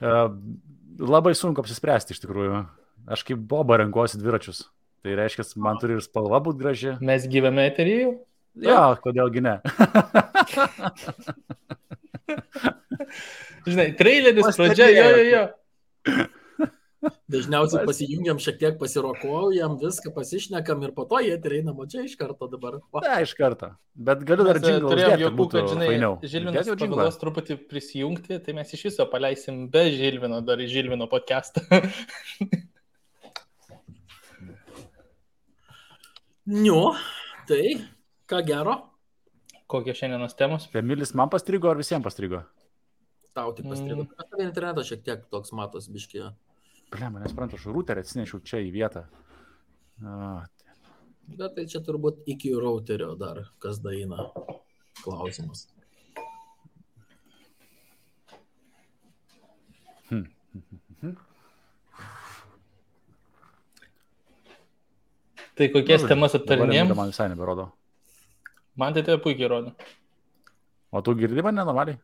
Labai sunku apsispręsti iš tikrųjų. Aš kaip Boba renkuosi dviračius. Tai reiškia, man turi ir spalva būti graži. Mes gyvame eteryje jau? Jo, kodėlgi ne. Žinai, traileris pradžia, jo. Dažniausiai pasijungiam šiek tiek pasirokuojam, viską pasišnekam ir po to jie eina čia iš karto dabar. Ne, iš karto. Bet galiu dar džinglą turėjom uždėti, jokų, kad, žinai, fainiau. Žilvinas pagalvos truputį prisijungti, tai mes iš viso paleisim be Žilvino, dar į Žilvino podcastą. Tai ką gero? Kokie šiandienos temos? Emilis man pastrigo ar visiems pastrigo? Tau tik pastrigo. Tave internetas šiek tiek toks matos biškį. Blema, nesprantu, aš routerį atsinešiau čia į vietą. Bet tai čia turbūt iki routerio dar kas daina klausimas. Tai kokias temas aptarinėjom? Man visai neberodo. Man tai tai puikiai rodo. O tu girdi mane normaliai?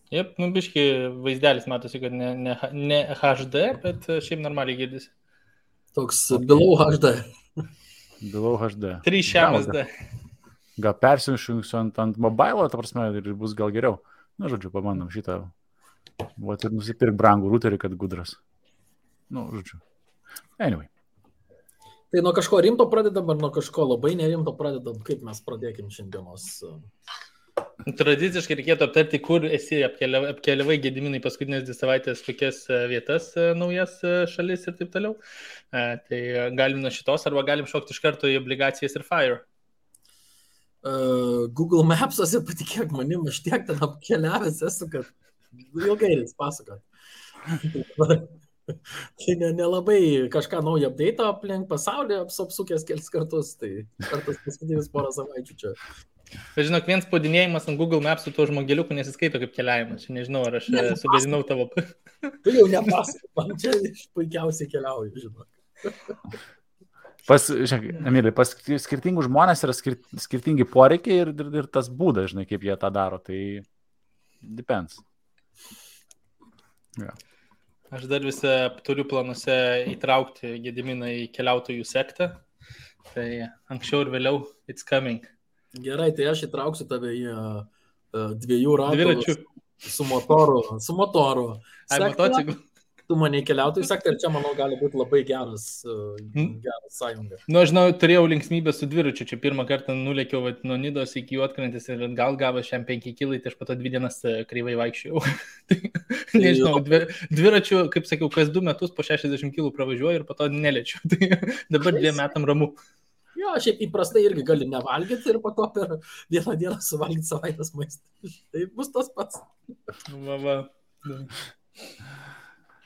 Jep, biški vaizdelis matosi, kad ne HD, bet šiaip normaliai girdisi. Toks below HD. Below HD. 3 SD. Gal persiunšiu ant mobilo, ta prasme, ir bus gal geriau. Na, žodžiu, pabandom šitą. Vat ir nusipirk brangų routerį, kad gudras. Žodžiu. Anyway. Tai nuo kažko rimto pradedam, ar nuo kažko labai nerimto pradedam? Kaip mes pradėkim šiandienos? Tradiciškai reikėtų aptarti, kur esi apkeliavai Gediminai paskutinės 2 savaitės, kokias vietas, naujas šalis ir taip toliau. Tai galim nuo šitos, arba galim šokti iš karto į obligacijas ir Fire. Google Maps'ose, patikėk manim, aš tiek ten apkeliavęs esu, kad ilgai reiks pasakot. Tai nelabai kažką naują update aplink pasaulį apsukęs kelis kartus, tai kartas paskutinis porą savaičių čia. Bet žinok, vien spaudinėjimas ant Google Maps su tuo žmogeliuku nesiskaito kaip keliavimas. Čia nežinau, ar aš sugadinau tavo... Tu jau nepasakok, man čia puikiausiai keliauju, žinok. Emilį, pas skirtingų žmonės yra skirtingi poreikiai ir tas būdas, žinai, kaip jie tą daro. Tai depends. Yeah. Aš dar visą turiu planuose įtraukti Gediminą į keliautojų sektą. Tai anksčiau ir vėliau it's coming. Gerai, tai aš įtrauksiu tave į 2 ratų su motoru. Ai, motociklu. Tu mane į keliautojų sektą ir čia, manau, gali būti labai geras sąjunga. Žinau, turėjau linksmybę su dviračiu. Čia pirmą kartą nulėkiau nuo Nidos iki Juodkrantės ir gal gavo šiam 5 kilai, tai aš po to 2 dienas kreivai vaikščiau. Nežinau, dviračiu, kaip sakiau, kas 2 metus po 60 kilų pravažiuoju ir po to neliečiu. Tai dabar 2 metam ramu. Jo, šiaip įprastai irgi gali nevalgyti ir po to per 1 dieną suvalgyti savaitės maistą. Tai bus tas pats.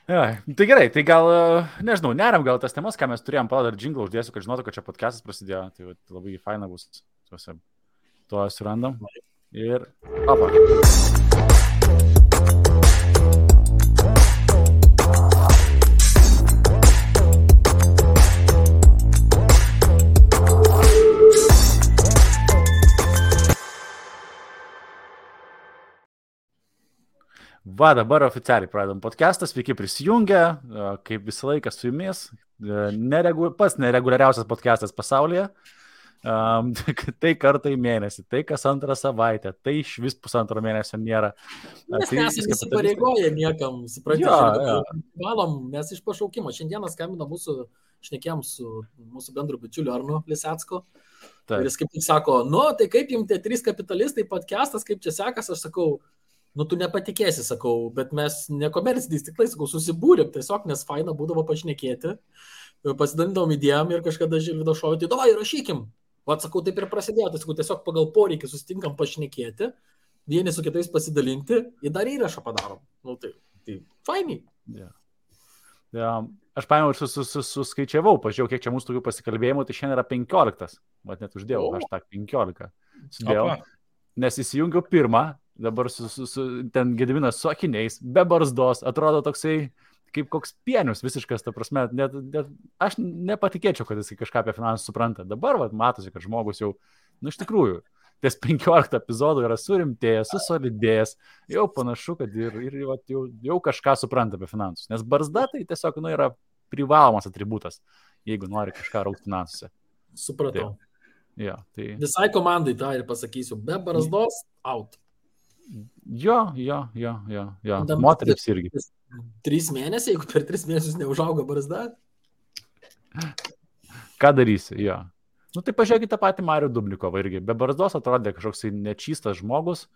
Ja, tai gerai, tai gal, nežinau, neriam gal tas temas, ką mes turėjom, pala dar džinglą uždėsiu, kad žinotų, kad čia podcastas prasidėjo. Tai labai faina bus. Tuo surandam. Ir opa. Va, dabar oficialiai pradedam podcastą, sveiki prisijungę, kaip visą laiką su jumis, pats nereguliariausias podcastas pasaulyje, tai kartą į mėnesį, tai kas 2 savaitę, tai iš vis 1,5 mėnesio nėra. Mes nesame įsipareigoję niekam, suprantate, mes iš pašaukimo. Šiandieną skambino šnekėjom su mūsų bendru bičiuliu Arnu Lisecku. Ir jis kaip tik sako, tai kaip jums tie 3 kapitalistai podcastas, kaip čia sekas, aš sakau, tu nepatikėsi, sakau, bet mes nekomerciniais tiklais, sakau, susibūrėm tiesiog, nes faina būdavo pašnekėti, pasidalindavom idėjom ir kažkada Žilvido šovė, tai davai, rašykim. Vat, sakau, taip ir prasidėjo, tai sakau, tiesiog pagal poreikį susitinkam pašnekėti, vieni su kitais pasidalinti ir dar įrašą padarom. Tai fainiai. Yeah. Aš paėmiau ir suskaičiavau, pažiūrėjau, kiek čia mūsų tokių pasikalbėjimų, tai šiandien yra 15. Vat net uždėjau, hashtag 15. Sudėjau, nes įsijungiau pirmą. Dabar ten Gediminas su akiniais, be barzdos, atrodo toksai kaip koks pienius visiškas, ta prasme, net aš nepatikėčiau, kad jis kažką apie finansų supranta. Dabar matosi, kad žmogus jau, iš tikrųjų, ties 15 epizodų yra surimtėjęs, susolidėjęs, jau panašu, kad jau kažką supranta apie finansus. Nes barzda tai tiesiog yra privalomas atributas, jeigu nori kažką raukti finansuose. Supratau. Tai... Visai komandai tą ir pasakysiu, be barzdos, out. Jo. Moterims irgi. 3 mėnesiai, jeigu per 3 mėnesius neužauga barzda. Ką darysi, jo. Tai pažiūrėkite tą patį Marių Dubnikovą irgi. Be barzdos atrodė kažkoks nečystas žmogus,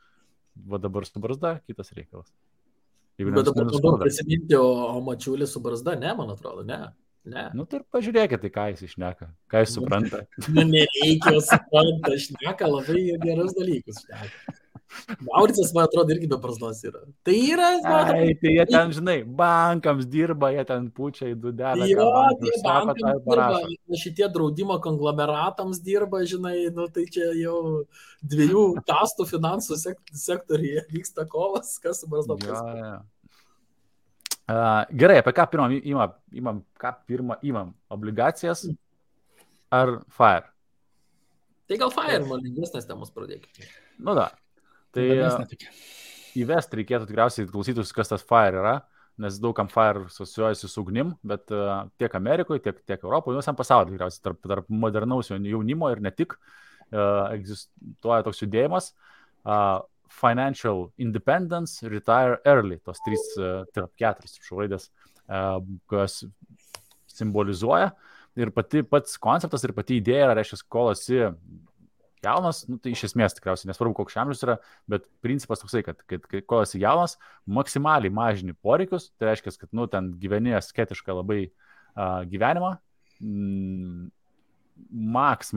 va dabar su barzda kitas reikalas. Bet dabar prisiminti, o Mačiulis su barzda, ne, man atrodo, ne. Tai pažiūrėkite, ką jis išneka, ką jis supranta. Nereikia, supranta, šneka labai gerus dalykus. Mauricas, man atrodo, irgi be barzdos yra. Tai yra, tai jie ten, žinai, bankams dirba, jie ten pučia į dudelę. Tie bankams dirba, šitie draudimo konglomeratams dirba, žinai, tai čia jau 2 kastų finansų sektoriuje vyksta kovas, kas su barzdos. Gerai, apie ką pirmą imam? Obligacijas ar FIRE? Tai gal FIRE, man lengvesnės temos pradėkime. Da. Tai įvesti reikėtų tikriausiai klausytus, kas tas FIRE yra, nes daugam FIRE asocijuojasi su ugnim, bet tiek Amerikoje, tiek Europoje, visam pasaulyje tikriausiai tarp modernaus jaunimo ir ne tik egzistuoja toks judėjimas. Financial Independence, Retire Early, tos 4 raidės, kas simbolizuoja. Ir pats konceptas ir pati idėja, reiškia, kol esi jaunas, tai iš esmės tikriausiai nesvarbu, koks amžius yra, bet principas toksai, kad kol esi jaunas, maksimaliai mažini poreikius, tai reiškia, kad ten gyveni asketišką labai gyvenimą, maks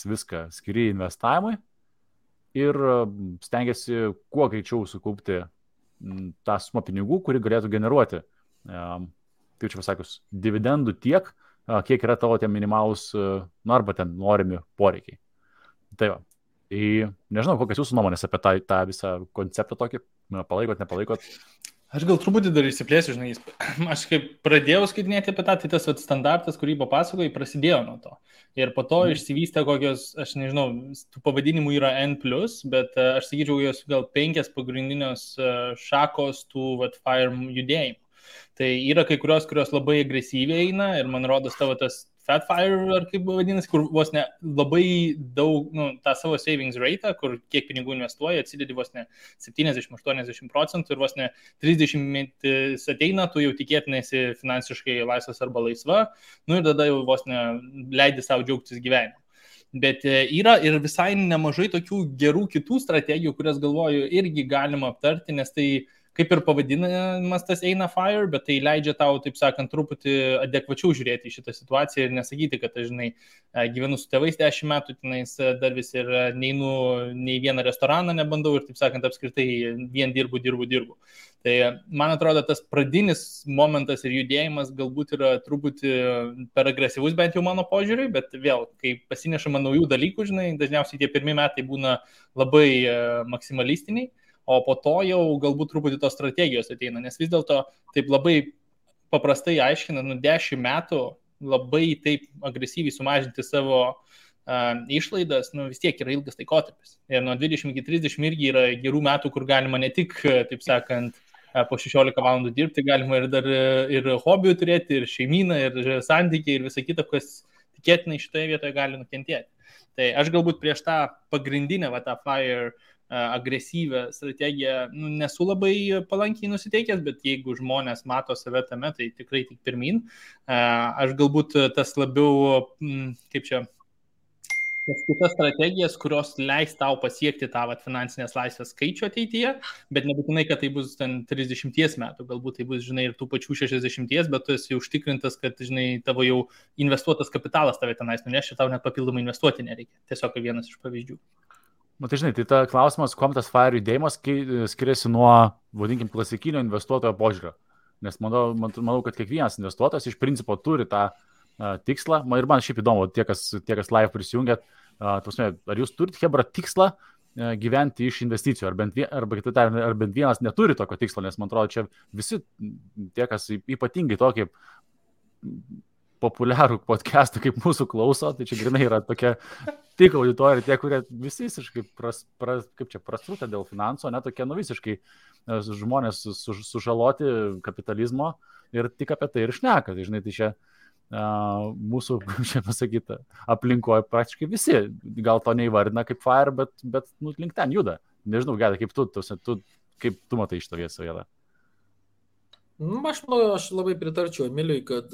viską skiri investavimui, ir stengiasi kuo greičiau sukaupti tą sumą pinigų, kuri galėtų generuoti, kaip čia pasakius, dividendų tiek, kiek yra tavo tie minimalūs, arba ten norimi poreikiai. Tai va. Nežinau, kokias jūsų nuomonės apie tą visą konceptą tokį, palaikot, nepalaikot. Aš gal truputį dar išsiplėsiu, žinai, aš kaip pradėjau skaitinėti apie tą, tai tas standartas, kurį papasakojai, prasidėjo nuo to. Ir po to išsivystė kokios, aš nežinau, tų pavadinimų yra N+, bet aš sakyčiau, jos gal 5 pagrindinios šakos tų FIRE judėjimų. Tai yra kai kurios labai agresyviai eina ir man rodos tavo tas Fat FIRE, ar kaip vadinasi, kur vos ne labai daug, tą savo savings rate, kur kiek pinigų investuoja, atsidedi vos ne 70-80% ir vos ne 30 metais ateina, tu jau tikėtinai esi finansiškai laisvas arba laisva, ir tada jau vos ne leidi savo džiaugtis gyvenimu. Bet yra ir visai nemažai tokių gerų kitų strategijų, kurias galvoju irgi galima aptarti, nes tai kaip ir pavadinimas tas eina FIRE, bet tai leidžia tau, taip sakant, truputį adekvačiau žiūrėti į šitą situaciją ir nesakyti, kad aš, žinai, gyvenu su tėvais 10 metų, tenais dar vis ir neinu nei vieną restoraną nebandau ir, taip sakant, apskritai vien dirbu. Tai man atrodo, tas pradinis momentas ir judėjimas galbūt yra truputį per agresyvus, bent jau mano požiūriui, bet vėl, kai pasinešama naujų dalykų, žinai, dažniausiai tie pirmi metai būna labai maksimalistiniai. O po to jau galbūt truputį tos strategijos ateina, nes vis dėlto taip labai paprastai aiškina, 10 metų labai taip agresyviai sumažinti savo išlaidas, vis tiek yra ilgas laikotarpis. Ir nuo 20 iki 30 irgi yra gerų metų, kur galima ne tik, taip sakant, po 16 valandų dirbti, galima ir dar ir hobių turėti, ir šeimyną, ir santykiai, ir visą kitą, kas tikėtinai šitoje vietoje gali nukentėti. Tai aš galbūt prieš tą pagrindinę, tą FIRE agresyvę strategiją nesu labai palankiai nusiteikęs, bet jeigu žmonės mato save tame, tai tikrai tik pirmin. Aš galbūt tas labiau, kaip čia, tas kitas strategijas, kurios leis tau pasiekti tą finansinės laisvės skaičių ateityje, bet nebūtinai, kad tai bus ten 30 metų, galbūt tai bus, žinai, ir tų pačių 60, bet tu esi užtikrintas, kad, žinai, tavo jau investuotas kapitalas tave tenais nuneš ir tau net papildomai investuoti nereikia. Tiesiog vienas iš pavyzdžių. Tai žinai, tai ta klausimas, kuom tas FIRE judėjimas skiriasi nuo, vadinkim, klasikinio investuotojo požiūrio. Nes manau, kad kiekvienas investuotojas iš principo turi tą tikslą. Ir man šiaip įdomu, tie, kas live prisijungėt, ar jūs turite, hebra, tikslą gyventi iš investicijų, ar bent vienas neturi tokio tikslo, nes man atrodo, čia visi tie, kas ypatingai tokį populiarų podcastų kaip mūsų klauso, tai čia grinai yra tokia tik auditorija, tie, kurie visiškai prastrūtę dėl finansų, ne tokie visiškai žmonės sužaloti kapitalizmo ir tik apie tai ir šneka. Tai žinai, tai čia mūsų, kaip čia pasakyta, aplinkoje praktiškai visi, gal to neįvardina kaip FIRE, bet link ten juda. Nežinau, Gedai, kaip tu matai šitą vietą? Aš labai pritarčiau Emiliui, kad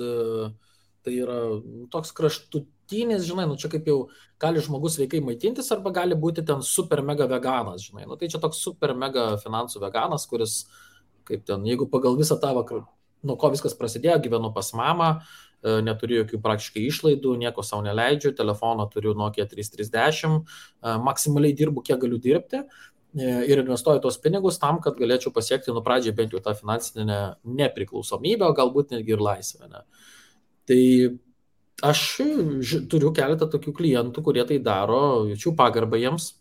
tai yra toks kraštutinis, žinai, čia kaip jau gali žmogus sveikai maitintis arba gali būti ten super mega veganas, žinai. Tai čia toks super mega finansų veganas, kuris, kaip ten, jeigu pagal visą tavo, nuo ko viskas prasidėjo, gyvenu pas mamą, neturiu jokių praktiškai išlaidų, nieko savo neleidžiu, telefoną turiu Nokia 3310, maksimaliai dirbu, kiek galiu dirbti ir investuoju tos pinigus tam, kad galėčiau pasiekti pradžiai bent jau tą finansinę nepriklausomybę, galbūt netgi ir laisvę. Ne? Tai aš turiu keletą tokių klientų, kurie tai daro, jaučiu pagarbą jiems,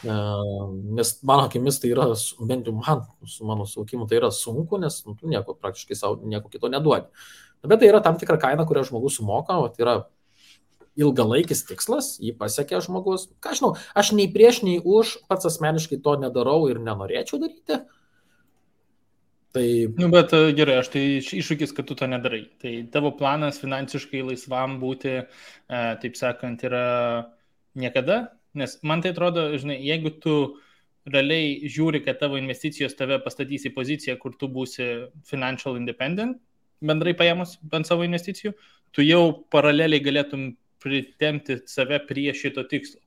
nes mano akimis tai yra, bent jau man, su mano suvokimu, tai yra sunku, nes tu nieko praktiškai savo nieko kito neduodi. Bet tai yra tam tikra kaina, kurią žmogus sumoka, o tai yra ilgalaikis tikslas, jį pasiekia žmogus. Ką žinau, aš nei prieš, nei už, pats asmeniškai to nedarau ir nenorėčiau daryti. Tai... Bet gerai, aš tai iššūkis, kad tu to nedarai. Tai tavo planas finansiškai laisvam būti, taip sakant, yra niekada, nes man tai atrodo, žinai, jeigu tu realiai žiūri, kad tavo investicijos tave pastatys į poziciją, kur tu būsi financial independent, bendrai paėmus bent savo investicijų, tu jau paraleliai galėtum pritempti save prie šito tikslo.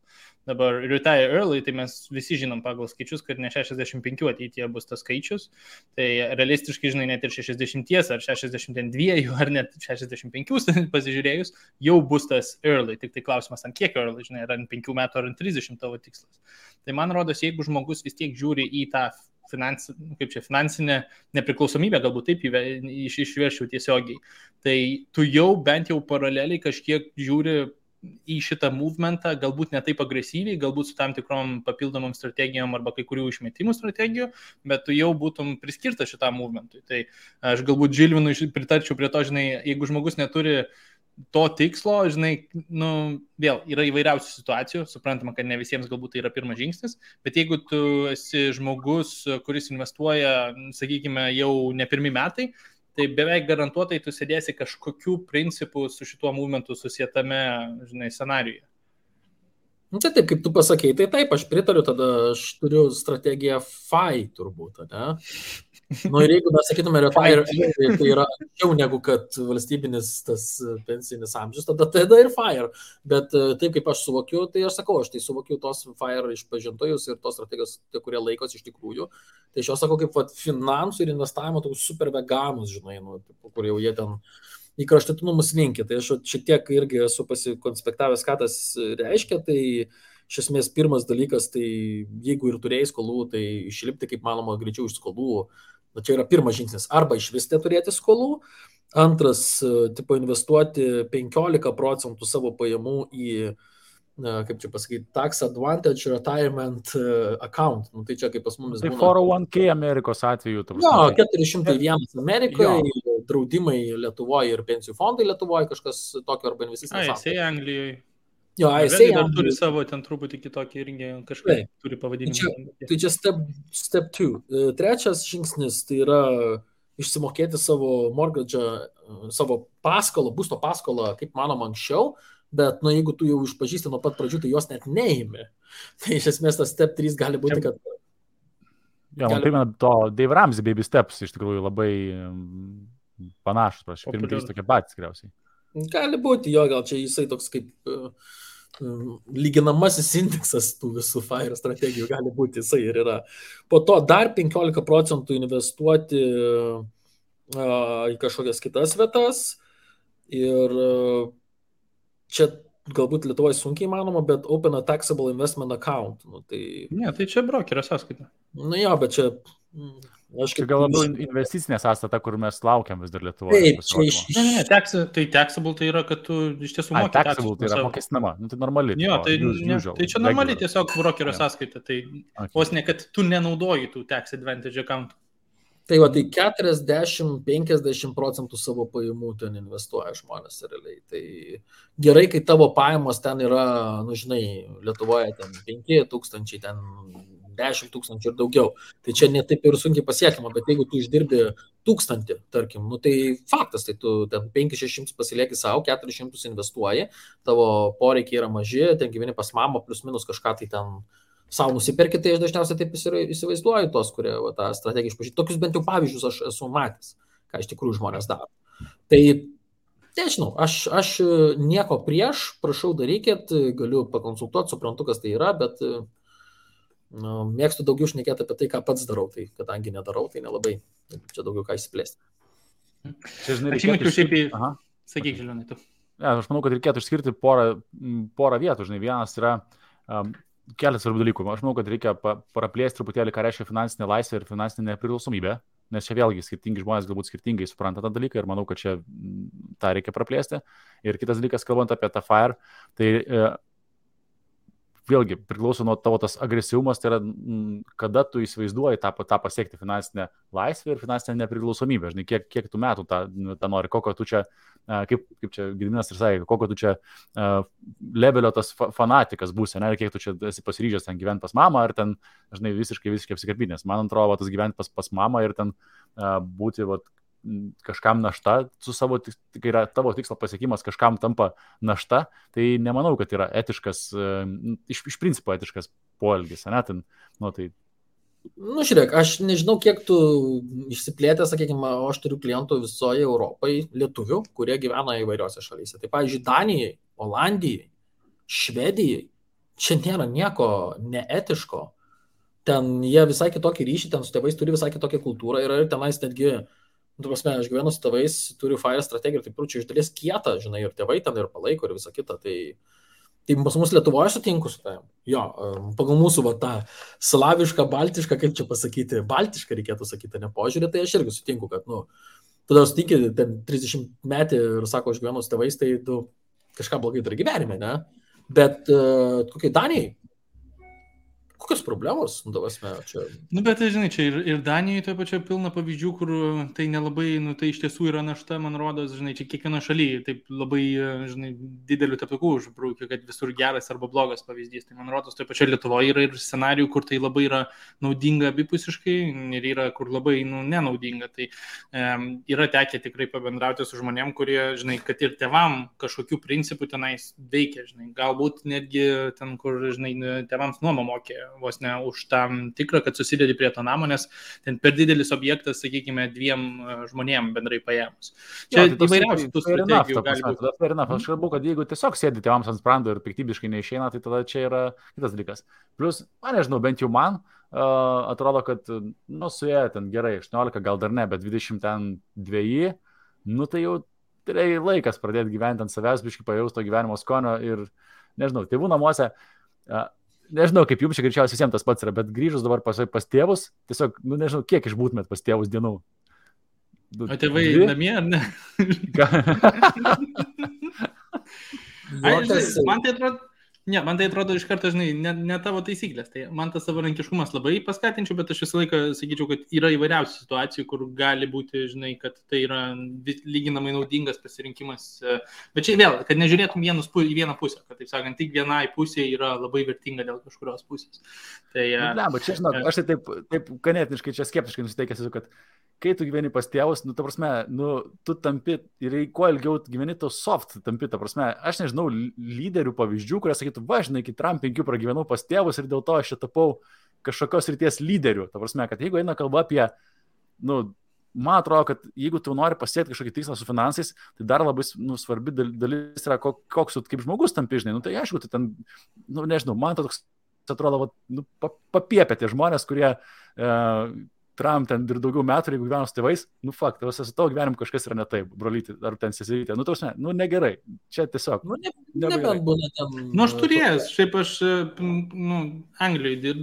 Dabar retire early, tai mes visi žinom pagal skaičius, kad ne 65 ateityje bus tas skaičius, tai realistiškai, žinai, net ir 60 ar 62 ar net 65 pasižiūrėjus, jau bus tas early, tik tai klausimas, ant kiek early, žinai, ar ant 5 metų ar ant 30 tavo tikslas. Tai man rodos, jeigu žmogus vis tiek žiūri į tą finansinę nepriklausomybę, galbūt taip išveršiau tiesiogiai, tai tu jau bent jau paraleliai kažkiek žiūri į šitą movementą, galbūt ne taip agresyviai, galbūt su tam tikrom papildomom strategijom arba kai kurių išmetimų strategijų, bet tu jau būtum priskirtas šitam movementui. Tai aš galbūt Žilvinui pritarčiau prie to, žinai, jeigu žmogus neturi to tikslo, žinai, vėl yra įvairiausių situacijų, suprantama, kad ne visiems galbūt tai yra pirmas žingsnis, bet jeigu tu esi žmogus, kuris investuoja, sakykime, jau ne pirmi metai, tai beveik garantuotai tu sėdėsi kažkokių principų su šituo movementu susietame, žinai, scenarijuje. Tai taip, kaip tu pasakei, tai taip, aš pritariu, tada aš turiu strategiją FI turbūt, ne? Ir jeigu mes sakytume retire, tai yra anksčiau negu kad valstybinis tas pensinis amžius, tada ir FIRE. Bet taip kaip aš suvokiu, tai aš sakau, aš tai suvokiu tos FIRE išpažintojus ir tos strategijos, kurie laikos iš tikrųjų. Tai aš jau sakau, kaip finansų ir investavimo tokius super veganus, žinai, kur jau jie ten į kraštutinumus linkia. Tai aš šitiek irgi esu pasikonspektavęs, ką tas reiškia. Tai iš esmės pirmas dalykas, tai jeigu ir turėjai skolų, tai išlipti kaip manoma greičiau iš skolų. Čia yra pirmas žingsnis. Arba iš vis neturėti skolų. Antras, investuoti 15% savo pajamų į, kaip čia pasakyti, tax advantage retirement account. Tai čia kaip pas mumis būna. Tai 401k Amerikos atveju. Jo, 401 Amerikoje, draudimai Lietuvoje ir pensijų fondai Lietuvoje, kažkas tokio arba investicinės. Jisai Anglijoje. Jo, jisai dar turi savo ten truputį kitokį irgi kažkaip turi pavadinimą. Tai čia step 2. Trečias žingsnis tai yra išsimokėti savo mortgage, savo paskolą, būsto paskolą, kaip manoma anksčiau, bet jeigu tu jau išpažįsti nuo pat pradžių, tai jos net neimi. Tai iš esmės tas step 3 gali būti, kad... Jo, man primena to Dave Ramsey Baby Steps, iš tikrųjų labai panašus, prašau, pirmi 3 tokie patys tikriausiai. Gali būti, jo, gal čia jisai toks kaip lyginamasis indeksas tų visų FIRE strategijų gali būti, jisai ir yra. Po to dar 15% investuoti į kažkokias kitas vietas ir čia galbūt Lietuvoje sunkiai įmanoma, bet open a taxable investment account. Ne, tai čia brokerio sąskaita. Jo, bet čia... Čia gal labiau investicinė sąstata, kur mes laukiam vis dar Lietuvoje. Tai taxable tai yra, kad tu iš tiesų moki. Taxable tai yra mokestinama, tai normali. Jo, tai čia normali tiesiog brokerio sąskaita. Tai vos ne, kad tu nenaudoji tų tax advantage account. Tai va, tai 40-50% savo pajamų ten investuoja žmonės realiai. Tai gerai, kai tavo pajamos ten yra, žinai, Lietuvoje ten 5,000, ten 10,000 ir daugiau. Tai čia netaip ir sunkiai pasiekiama, bet jeigu tu išdirbi 1,000, tarkim, tai faktas, tai tu ten 5-600 pasilieki savo, 400 investuoji, tavo poreikiai yra maži, ten gyveni pas mamą, plus minus kažką tai ten savo nusipirkti, tai aš dažniausiai taip įsivaizduoju tos, kurie tą strategiją išpažįsta. Tokius bent jau pavyzdžius aš esu matęs, ką iš tikrųjų žmonės daro. Tai, nežinau, aš nieko prieš, prašau darykit, galiu pakonsultuoti, suprantu, kas tai yra, bet mėgstu daugiau šnekėti apie tai, ką pats darau, tai kadangi nedarau, tai nelabai, čia daugiau ką įsiplėsti. Aš įmečiau šiaip į... Sakyk, Žilionai, tu. Aš manau, kad reikėtų išskirti porą vietų, žinai, vienas yra... Kelias svarbių dalykų. Aš manau, kad reikia praplėsti truputėlį, ką reiškia finansinė laisvė ir finansinė nepriklausomybė, nes čia vėlgi skirtingi žmonės galbūt skirtingai supranta tą dalyką ir manau, kad čia tą reikia praplėsti. Ir kitas dalykas, kalbant apie tą FIRE, tai vėlgi priklauso nuo tavo tas agresyvumas, tai yra kada tu įsivaizduoji tą pasiekti finansinę laisvę ir finansinę nepriklausomybę. Žinai, kiek tu metų tą nori, kokio tu čia, kaip čia Gediminas ir sakė, kokio tu čia levelio tas fanatikas būsi, ne, ir kiek tu čia esi pasiryžęs ten gyventi pas mamą, ar ten, žinai, visiškai apsikabinęs. Man atrodo, tas gyventi pas mamą ir ten būti kažkam našta, kai yra tavo tikslo pasiekimas, kažkam tampa našta, tai nemanau, kad yra etiškas, iš principo etiškas poelgis, ne, ten, tai... Žiūrėk, aš nežinau, kiek tu išsiplėtė, sakykime, aš turiu klientų visoje Europai, lietuvių, kurie gyvena įvairiose šalyse. Tai, pavyzdžiui, Danijai, Olandijai, Švedijai, čia nėra nieko neetiško. Ten jie visai kitokį ryšį, ten su tėvais turi visai kitokią kultūrą ir tenais netgi aš gyvenu su tėvais, turiu FIRE strategiją ir taip čia iš dalies kietą, žinai, ir tėvai ten ir palaiko ir visą kitą. Tai pas mus Lietuvoje sutinku su tavim. Jo, pagal mūsų tą slavišką, baltišką, kaip čia pasakyti, baltišką reikėtų sakyti, ne požiūrį, tai aš irgi sutinku, kad, tada sutinki ten 30 metį ir sako, aš gyvenu su tėvais, tai tu kažką blogai turi gyvenime, ne? Bet kokiai Danijai? Kokios problemos, čia... Bet, žinai, čia ir Danijoje toje pačioje pilna pavyzdžių, kur tai nelabai, tai iš tiesų yra našta, man rodos, žinai, čia kiekvieno šalyje, taip labai, žinai, didelių teptukų užbrūkiu, kad visur geras arba blogas pavyzdys. Tai man rodos, toje pačioje Lietuvoje yra ir scenarijų, kur tai labai yra naudinga abipusiškai ir yra, kur labai, nenaudinga. Tai yra tekę tikrai pabendrauti su žmonėm, kurie, žinai, kad ir tėvam kažkokių principų tenais veikia, žinai, galbūt netgi ten, kur, žinai, tėvams nuomą mokė, vos ne už tam tikrą, kad susidedi prie to namo, nes ten per didelis objektas, sakykime, 2 žmonėm bendrai paėmus. Čia įvairiausių tų strategijų gali būti. Aš kalbu, kad jeigu tiesiog sėdi tėvams ant sprando ir piktybiškai neišeina, tai tada čia yra kitas dalykas. Plus, nežinau, bent jau man atrodo, kad, suėjo ten gerai, 18, gal dar ne, bet 22, tai jau tai laikas pradėti gyventi ant savęs, biškai pajausti to gyvenimo skonio ir, nežinau, tėvų namuose nežinau, kaip jums čia greičiausiai visiems tas pats yra, bet grįžus dabar pas tėvus, tiesiog, nežinau, kiek išbūtumėt pas tėvus dienų. O tėvai namie, ar ne? Man tai atrodo iš karto, žinai, ne tavo taisyklės. Tai man tas savarankiškumas labai paskatinčiau, bet aš visą laiką sakyčiau, kad yra įvairiausių situacijų, kur gali būti, žinai, kad tai yra lyginamai naudingas pasirinkimas. Bet čia vėl, kad nežiūrėtum į vieną pusę, kad, taip sakant, tik vienai pusė yra labai vertinga dėl kažkurios pusės. Tai, bet čia, žinok, aš tai taip ganėtiniškai čia skeptiškai nusiteikęs, kad kai tu gyveni pas tėvus, ta prasme, tu tampi ir kuo ilgiau gyveni, to soft tampi, ta prasme, aš nežinau lyderių pavyzdžių, kurie sakytų, žinai, iki Trump 5 pragyvenau pas tėvus ir dėl to aš čia tapau kažkokios ryties lyderių. Ta prasme, kad jeigu eina kalba apie, man atrodo, kad jeigu tu nori pasiekti kažkokį tikslą su finansais, tai dar labai svarbi dalis yra, koks tu kaip žmogus tampi, žinai. Tai aišku, tai ten, nežinau, man toks atrodo, papiepė tie žmonės, kurie Trump ten ir daugiau metų, jeigu gyvenu su tėvais, fakt, su tavo gyvenimu kažkas yra ne taip, brolyti, ar ten sesytė, negerai, čia tiesiog. Nebent būna ten. Aš turėjęs, šiaip aš, Anglijoje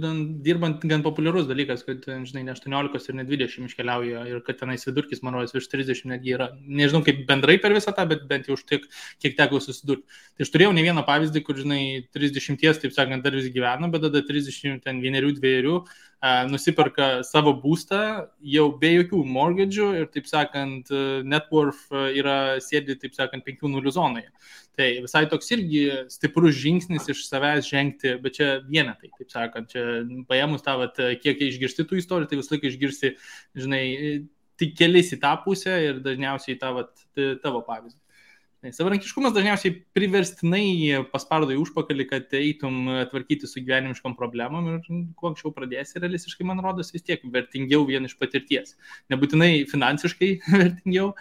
dirbant gan populiarus dalykas, kad, žinai, ne 18 ir ne 20 iškeliauja ir kad tenais vidurkis, man rodos, virš 30 netgi yra. Nežinau, kaip bendrai per visą tą, bet bent jau už tiek, kiek teko susidurti. Tai aš turėjau ne vieną pavyzdį, kur, žinai, 30, taip sakant, dar vis gyveno, bet tada 30, ten 1-2 nusiperka savo būstą jau be jokių mortgage'ų ir, taip sakant, net worth yra sėdi, taip sakant, 5-0 zonoje. Tai visai toks irgi stiprus žingsnis iš savęs žengti, bet čia vienetai, taip sakant, čia paėmus tą, kiek išgirsti tų istorijų, tai visą laiką išgirsti, žinai, tik kelis į tą pusę ir dažniausiai tavo pavyzdį. Savarankiškumas dažniausiai priverstinai paspardo į užpakalį, kad eitum tvarkyti su gyvenimiškom problemom ir kuo anksčiau pradėsi, realistiškai, man rodos, vis tiek vertingiau vien iš patirties. Nebūtinai finansiškai vertingiau,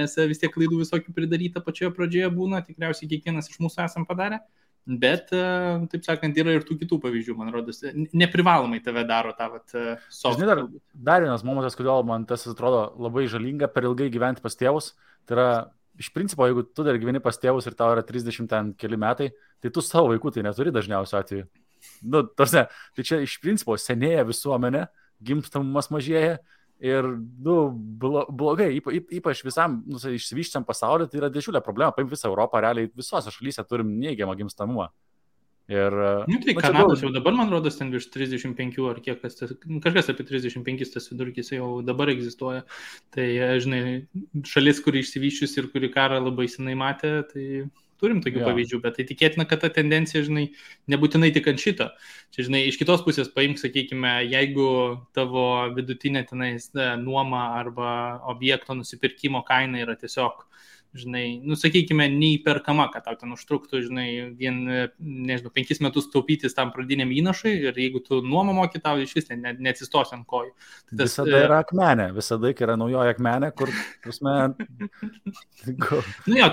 nes vis tiek klaidų visokių pridaryta pačioje pradžioje būna, tikriausiai kiekvienas iš mūsų esam padarę, bet, taip sakant, yra ir tų kitų pavyzdžių, man rodos, neprivalomai tave daro tą soft. Žinai, dar vienas momentas, kodėl man tas atrodo labai žalinga per ilgai gyventi pas tėvus, tai yra iš principo, jeigu tu dar gyveni pas tėvus ir tau yra 30 ten keli metai, tai tu savo vaikų tai neturi dažniausiu atveju. Tai čia iš principo senėja visuomenė, gimstamumas mažėja ir blogai, ypač visam išsivyščiam pasaulyje, tai yra didžiulė problema. Paim visą Europą, realiai visose šalyse turim neigiamą gimstamumą. Ir, tai Kanados jau dabar, man rodos, ten virš 35 ar kiek, kažkas apie 35 tas vidurkis jau dabar egzistuoja. Tai, žinai, šalis, kuri išsivyščius ir kuri karą labai senai matė, tai turim tokių pavyzdžių, bet tai tikėtina, kad ta tendencija, žinai, nebūtinai tik ant šito. Čia, žinai, iš kitos pusės paimk, sakykime, jeigu tavo vidutinė tenais nuoma arba objekto nusipirkimo kaina yra tiesiog, žinai, sakykime, neįperkama, kad tau ten užtruktų, žinai, vien, nežinau, 5 metus taupytis tam pradiniam įnašui ir jeigu tu nuomą moki, tau iš vis neatsistos ant kojų. Tai visada yra akmenė, visada yra naujoji akmenė, kur, prasme...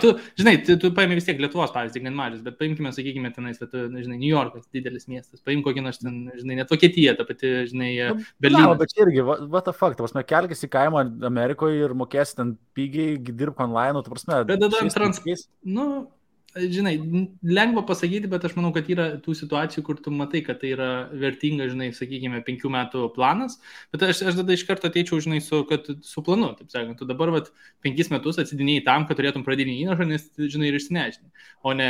tu, žinai, tu paimi vis tiek Lietuvos pavyzdį, gan mažas, bet paimkime, sakykime, tenais, žinai, New Yorkas, didelis miestas, paim kokį nors ten, žinai, net Vokietija, ta pati, žinai, Berlynas. Bet irgi, what the fuck, prasme, kelkis į kaimą Amerikoje ir mokėsi ten pigiai, dirbk online, tu prasme, bet tada žinai, lengva pasakyti, bet aš manau, kad yra tų situacijų, kur tu matai, kad tai yra vertinga, žinai, sakykime, 5 metų planas, bet aš tada iš karto ateičiau, žinai, su planu, taip sakant, tu dabar 5 metus atsidinėjai tam, kad turėtum pradinį įnašą, nes, žinai, ir išsinešinį, o ne,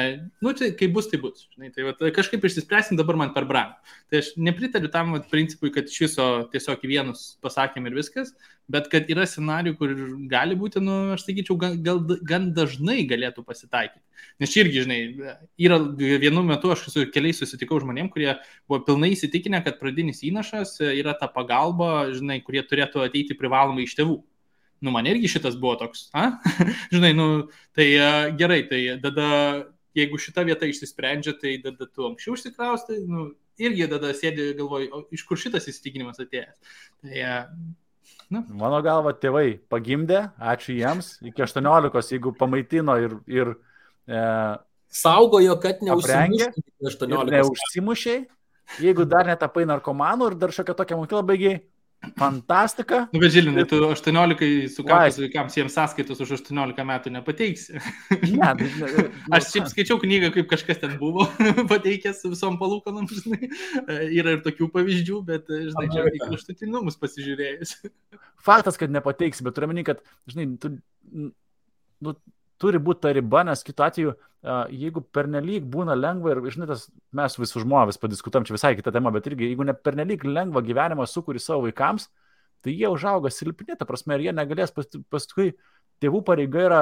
tai kai bus, žinai, tai kažkaip išsispręsim dabar man per brangu. Tai aš nepritariu tam principui, kad iš viso tiesiog į vienus pasakėm ir viskas, bet kad yra scenarijų, kur gali būti, aš sakyčiau, gan dažnai galėtų pasitaikyti. Nes čia irgi, žinai, yra vienu metu aš su keliais susitikau žmonėm, kurie buvo pilnai įsitikinę, kad pradinis įnašas yra ta pagalba, žinai, kurie turėtų ateiti privalomai iš tėvų. Man irgi šitas buvo toks, žinai, tai gerai, tai tada, jeigu šita vieta išsisprendžia, tai tada tu anksčiau užsikraustai, irgi tada sėdi galvoji, iš kur šitas įsitikinimas atėjęs. Tai... Mano galva, tėvai pagimdė, ačiū jiems, iki 18, jeigu pamaitino ir saugojo, kad neužsimušiai, jeigu dar netapai narkomanų ir dar šiokia tokia mokykla baigiai. Fantastika. Bet Žilinai, tu 18 sukakus vaikams jiems sąskaitos už 18 metų nepateiksi. Aš šiaip skaičiau knygą, kaip kažkas ten buvo pateikęs su visom palūkanom, žinai. Yra ir tokių pavyzdžių, bet, žinai, čia į kraštutinumus pasižiūrėjus. Faktas, kad nepateiksi, bet turiu meni, kad, žinai, turi būti ta riba, nes kitu atveju, jeigu pernelyg būna lengva ir, žinai, mes visų žmonės padiskutam, čia visai kita tema, bet irgi, jeigu ne pernelyg lengva gyvenimą sukuri savo vaikams, tai jie užauga silpni, ta prasme, ir jie negalės paskui, tėvų pareiga yra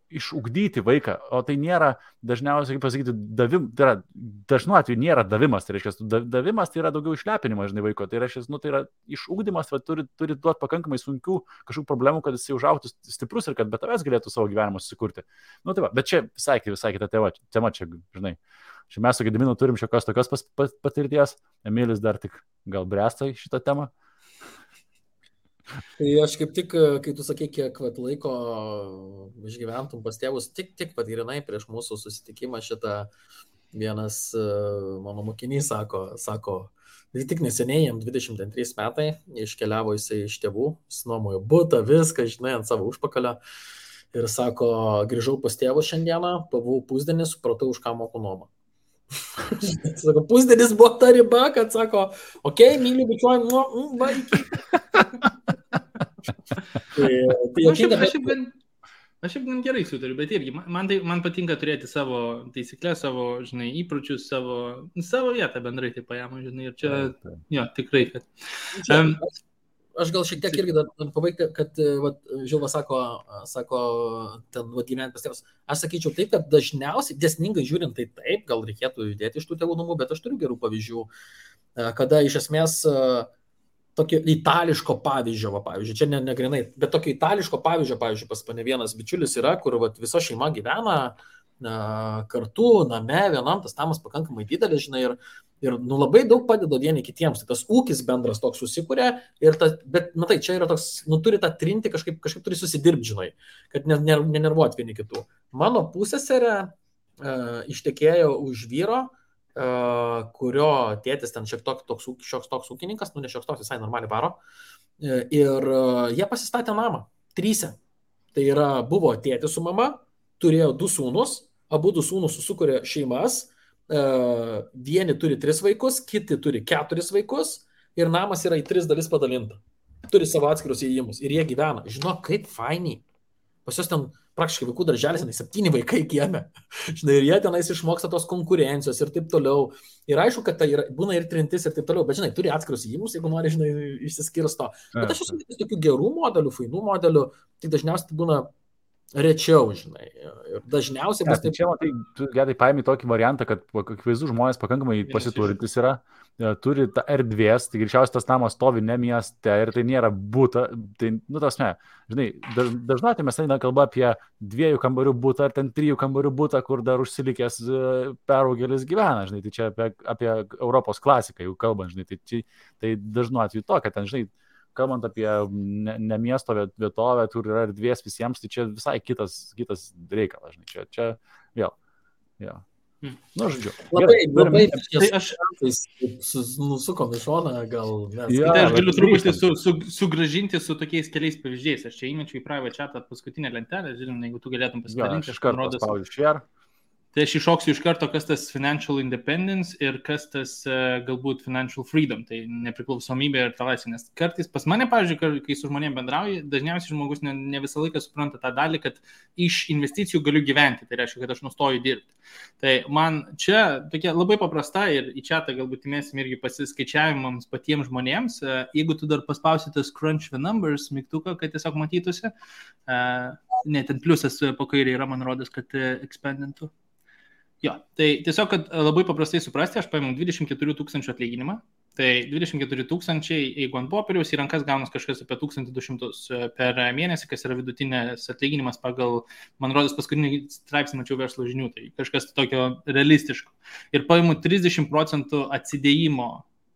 išugdyti vaiką, o tai nėra dažniausiai, kaip pasakyti, tai yra, dažnu atveju nėra davimas, tai reiškia, davimas tai yra daugiau išlepinimas, žinai, vaiko, tai reiškia, tai yra išugdymas, turi duoti pakankamai sunkių kažkokių problemų, kad jis užaugtų stiprus ir kad be tavęs galėtų savo gyvenimą susikurti. Tai va, bet čia visai kita tema, čia, žinai, čia mes su Gediminu turim šiokios tokios patirties, Emilis dar tik gal bręsta į šitą temą. Tai aš kaip tik, kai tu sakai, kiek laiko išgyventum pas tėvus, tik patyrinai prieš mūsų susitikimą šitą vienas mano mokinys sako, tik neseniai, jam 23 metai, iškeliavo jisai iš tėvų, nuomojo butą, viską, žinai, ant savo užpakalio ir sako, grįžau pas tėvus šiandieną, pavau pusdienį, supratau, už ką moku nuomą. Sako, pusdienis buvo ta riba, kad sako, okei, myliu, bičiuoju, va, iki. Aš jau gerai sutariu, bet irgi man patinka turėti savo taisyklės, savo, žinai, įpročius, savo vietą bendrai taip paėmą, žinai, ir čia, jo, tikrai, kad... Aš gal šiek tiek irgi dar pabaigti, kad Žilva sako, ten gyventi pas tėvus. Aš sakyčiau taip, kad dažniausiai, dėsningai žiūrint, tai taip, gal reikėtų judėti iš tų tėvų namų, bet aš turiu gerų pavyzdžių, kada iš esmės tokio itališko pavyzdžio, pavyzdžiui, čia negrinai, bet tokio itališko pavyzdžio, pavyzdžiui, pas mane vienas bičiulis yra, kur visa šeima gyvena kartu, name, vienam, tas namas pakankamai didelis, žinai, ir labai daug padeda vieni kitiems, tai tas ūkis bendras toks susikuria, bet, matai, čia yra toks, turi tą trinti, kažkaip turi susidirbti, žinai, kad nenervuot vieni kitų. Mano pusseserė ištekėjo už vyro, kurio tėtis ten šioks toks ūkininkas, ne šioks toks, visai normaliai varo, ir jie pasistatė namą, 3. Tai yra, buvo tėtis su mama, turėjo 2 sūnus, abu 2 sūnus susikūrė šeimas, vieni turi 3 vaikus, kiti turi 4 vaikus ir namas yra į 3 dalis padalinta. Turi savo atskirus įėjimus ir jie gyvena. Žinok, kaip fainiai. Pas jos ten praktiškai vaikų darželis, 7 vaikai kieme. Žinai, ir jie tenais išmoksta tos konkurencijos ir taip toliau. Ir aišku, kad tai būna ir trintis ir taip toliau, bet žinai, turi atskirus įėjimus, jeigu nori, žinai, išsiskirsto. Bet aš esu tokių gerų modelių, fainų modelių, tai dažniausiai būna rečiau, žinai. Ir dažniausiai bus taip. Čia, matai, tu gerai paimi tokį variantą, kad akivaizdų žmonės pakankamai pasiturintis yra, turi tą erdvės, tai greičiausiai tas namas stovi ne mieste ir tai nėra būta, tai, tasme, žinai, dažnai mes eina kalba apie 2 kambarių būtą ar ten 3 kambarių būtą, kur dar užsilikęs peraugelis gyvena, žinai, tai čia apie Europos klasiką jau kalbant, žinai, tai dažnu atveju to, kad ten, žinai, kalbant apie ne miesto vietovę, kur yra erdvės visiems, tai čia visai kitas reikalas, žinai, čia vėl, jo. Nu, žodžiu. Labai tai aš nusukom į šoną, gal mes... Tai aš galiu truputį sugrąžinti su tokiais keliais pavyzdžiais. Aš čia įmečiau į private chatą paskutinę lentelę, žinom, jeigu tu galėtum pasidalinti. Aš kartą spaudžiu share. Tai aš iššoksiu iš karto, kas tas financial independence ir kas tas galbūt financial freedom, tai nepriklausomybė ir ta laisvė. Nes kartais pas mane, pavyzdžiui, kai su žmonėm bendrauju, dažniausiai žmogus ne visą laiką supranta tą dalį, kad iš investicijų galiu gyventi, tai reiškia, kad aš nustoju dirbti. Tai man čia tokia labai paprasta ir į chatą galbūt įmėsim irgi pasiskaičiavimams patiems žmonėms. Jeigu tu dar paspausi tas crunch the numbers mygtuką, kad tiesiog matytųsi, ne, ten pliusas po kairė yra, man rodos, kad ekspandintų. Jo, tai tiesiog, kad labai paprastai suprasti, aš paėmiau 24 000 atlyginimą, tai 24 000, jeigu ant popieriaus į rankas gaunas kažkas apie 1200 per mėnesį, kas yra vidutinės atlyginimas pagal, man rodos, paskutinį straipsnį mačiau verslo žinių, tai kažkas tokio realistiško. Ir paėmiau 30% atsidėjimo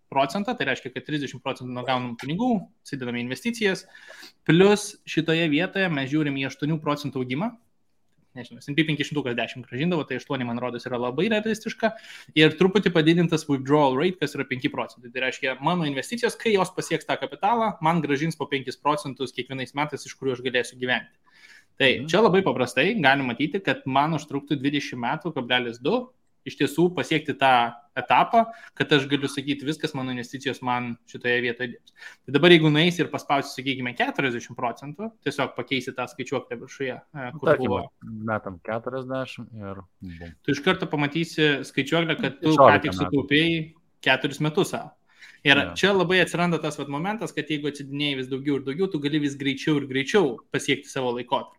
procentą, tai reiškia, kad 30% nuo gaunamų pinigų, atsidedame investicijas, plus šitoje vietoje mes žiūrim į 8% augimą. Nežinau, S&P 510 gražindavo, tai 8, man rodos, yra labai realistiška ir truputį padidintas withdrawal rate, kas yra 5%. Tai reiškia, mano investicijos, kai jos pasieks tą kapitalą, man gražins po 5% kiekvienais metais, iš kurių aš galėsiu gyventi. Tai čia labai paprastai galim matyti, kad man užtruktų 20 metų, 2, iš tiesų pasiekti tą etapą, kad aš galiu sakyti, viskas mano investicijos man šitoje vietoje dirbs. Tai dabar jeigu nueisi ir paspausi, sakykime, 40%, tiesiog pakeisi tą skaičiuoklę viršuje, kur buvo. Metam 40 ir... Tu iš karto pamatysi skaičiuoklę, kad tu ką tik sutaupėjai 4 metus savo. Ir čia labai atsiranda tas momentas, kad jeigu atsidinėjai vis daugiau ir daugiau, tu gali vis greičiau ir greičiau pasiekti savo laikotarpį.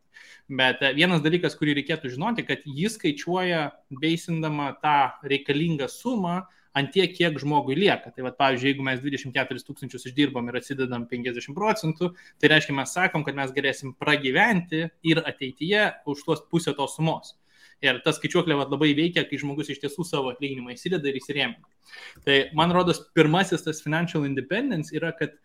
Bet vienas dalykas, kurį reikėtų žinoti, kad jis skaičiuoja beisindama tą reikalingą sumą ant tiek, kiek žmogui lieka. Tai pavyzdžiui, jeigu mes 24 000 išdirbam ir atsidedam 50%, tai reiškia, mes sakom, kad mes galėsim pragyventi ir ateityje už tuos pusę tos sumos. Ir ta skaičiuoklė labai veikia, kai žmogus iš tiesų savo atlyginimą įsideda ir įsirėmina. Tai man rodos, pirmasis tas financial independence yra, kad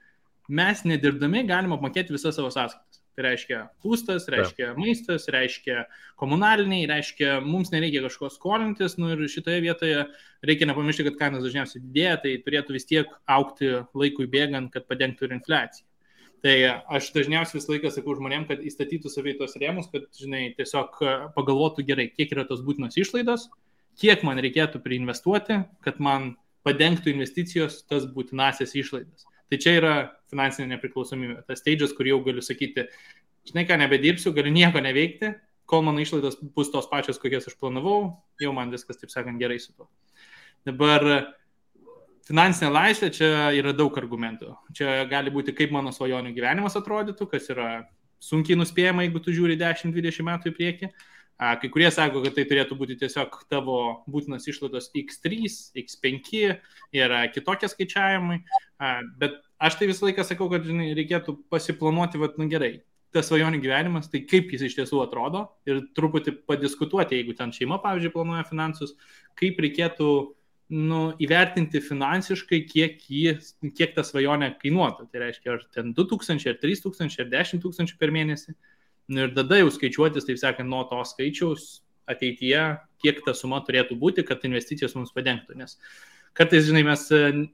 mes nedirbdami galim apmokėti visas savo sąskaitas. Tai reiškia būstas, reiškia maistas, reiškia komunaliniai, reiškia mums nereikia kažko skolintis. Ir šitoje vietoje reikia nepamiršti, kad kainos dažniausiai didėja, tai turėtų vis tiek augti laikui bėgant, kad padengtų ir infliaciją. Tai aš dažniausiai visą laiką sakau žmonėm, kad įstatytų savai tos rėmus, kad, žinai, tiesiog pagalvotų gerai, kiek yra tos būtinos išlaidos, kiek man reikėtų priinvestuoti, kad man padengtų investicijos tas būtinasias išlaidas. Tai čia yra finansinė nepriklausomybė. Tas stage'as, kur jau galiu sakyti, žinai ką, nebedirbsiu, galiu nieko neveikti, kol mano išlaidos bus tos pačios, kokias aš planavau, jau man viskas, taip sakant, gerai su to. Dabar finansinė laisvė, čia yra daug argumentų. Čia gali būti, kaip mano svajonių gyvenimas atrodytų, kas yra sunkiai nuspėjama, jeigu tu žiūri 10-20 metų į priekį. Kai kurie sako, kad tai turėtų būti tiesiog tavo būtinas išlaidos X3, X5 ir kitokie skaičiavimai. Bet aš tai visą laiką sakau, kad žinai, reikėtų pasiplanuoti, gerai, tas svajonių gyvenimas, tai kaip jis iš tiesų atrodo ir truputį padiskutuoti, jeigu ten šeima, pavyzdžiui, planuoja finansus, kaip reikėtų įvertinti finansiškai, kiek ta svajonė kainuotų. Tai reiškia, ar ten 2000, ar 3000, ar 10 000 per mėnesį. Ir tada jau skaičiuotis, taip sakant, nuo to skaičiaus ateityje, kiek ta suma turėtų būti, kad investicijos mums padengtų. Nes kartais, žinai, mes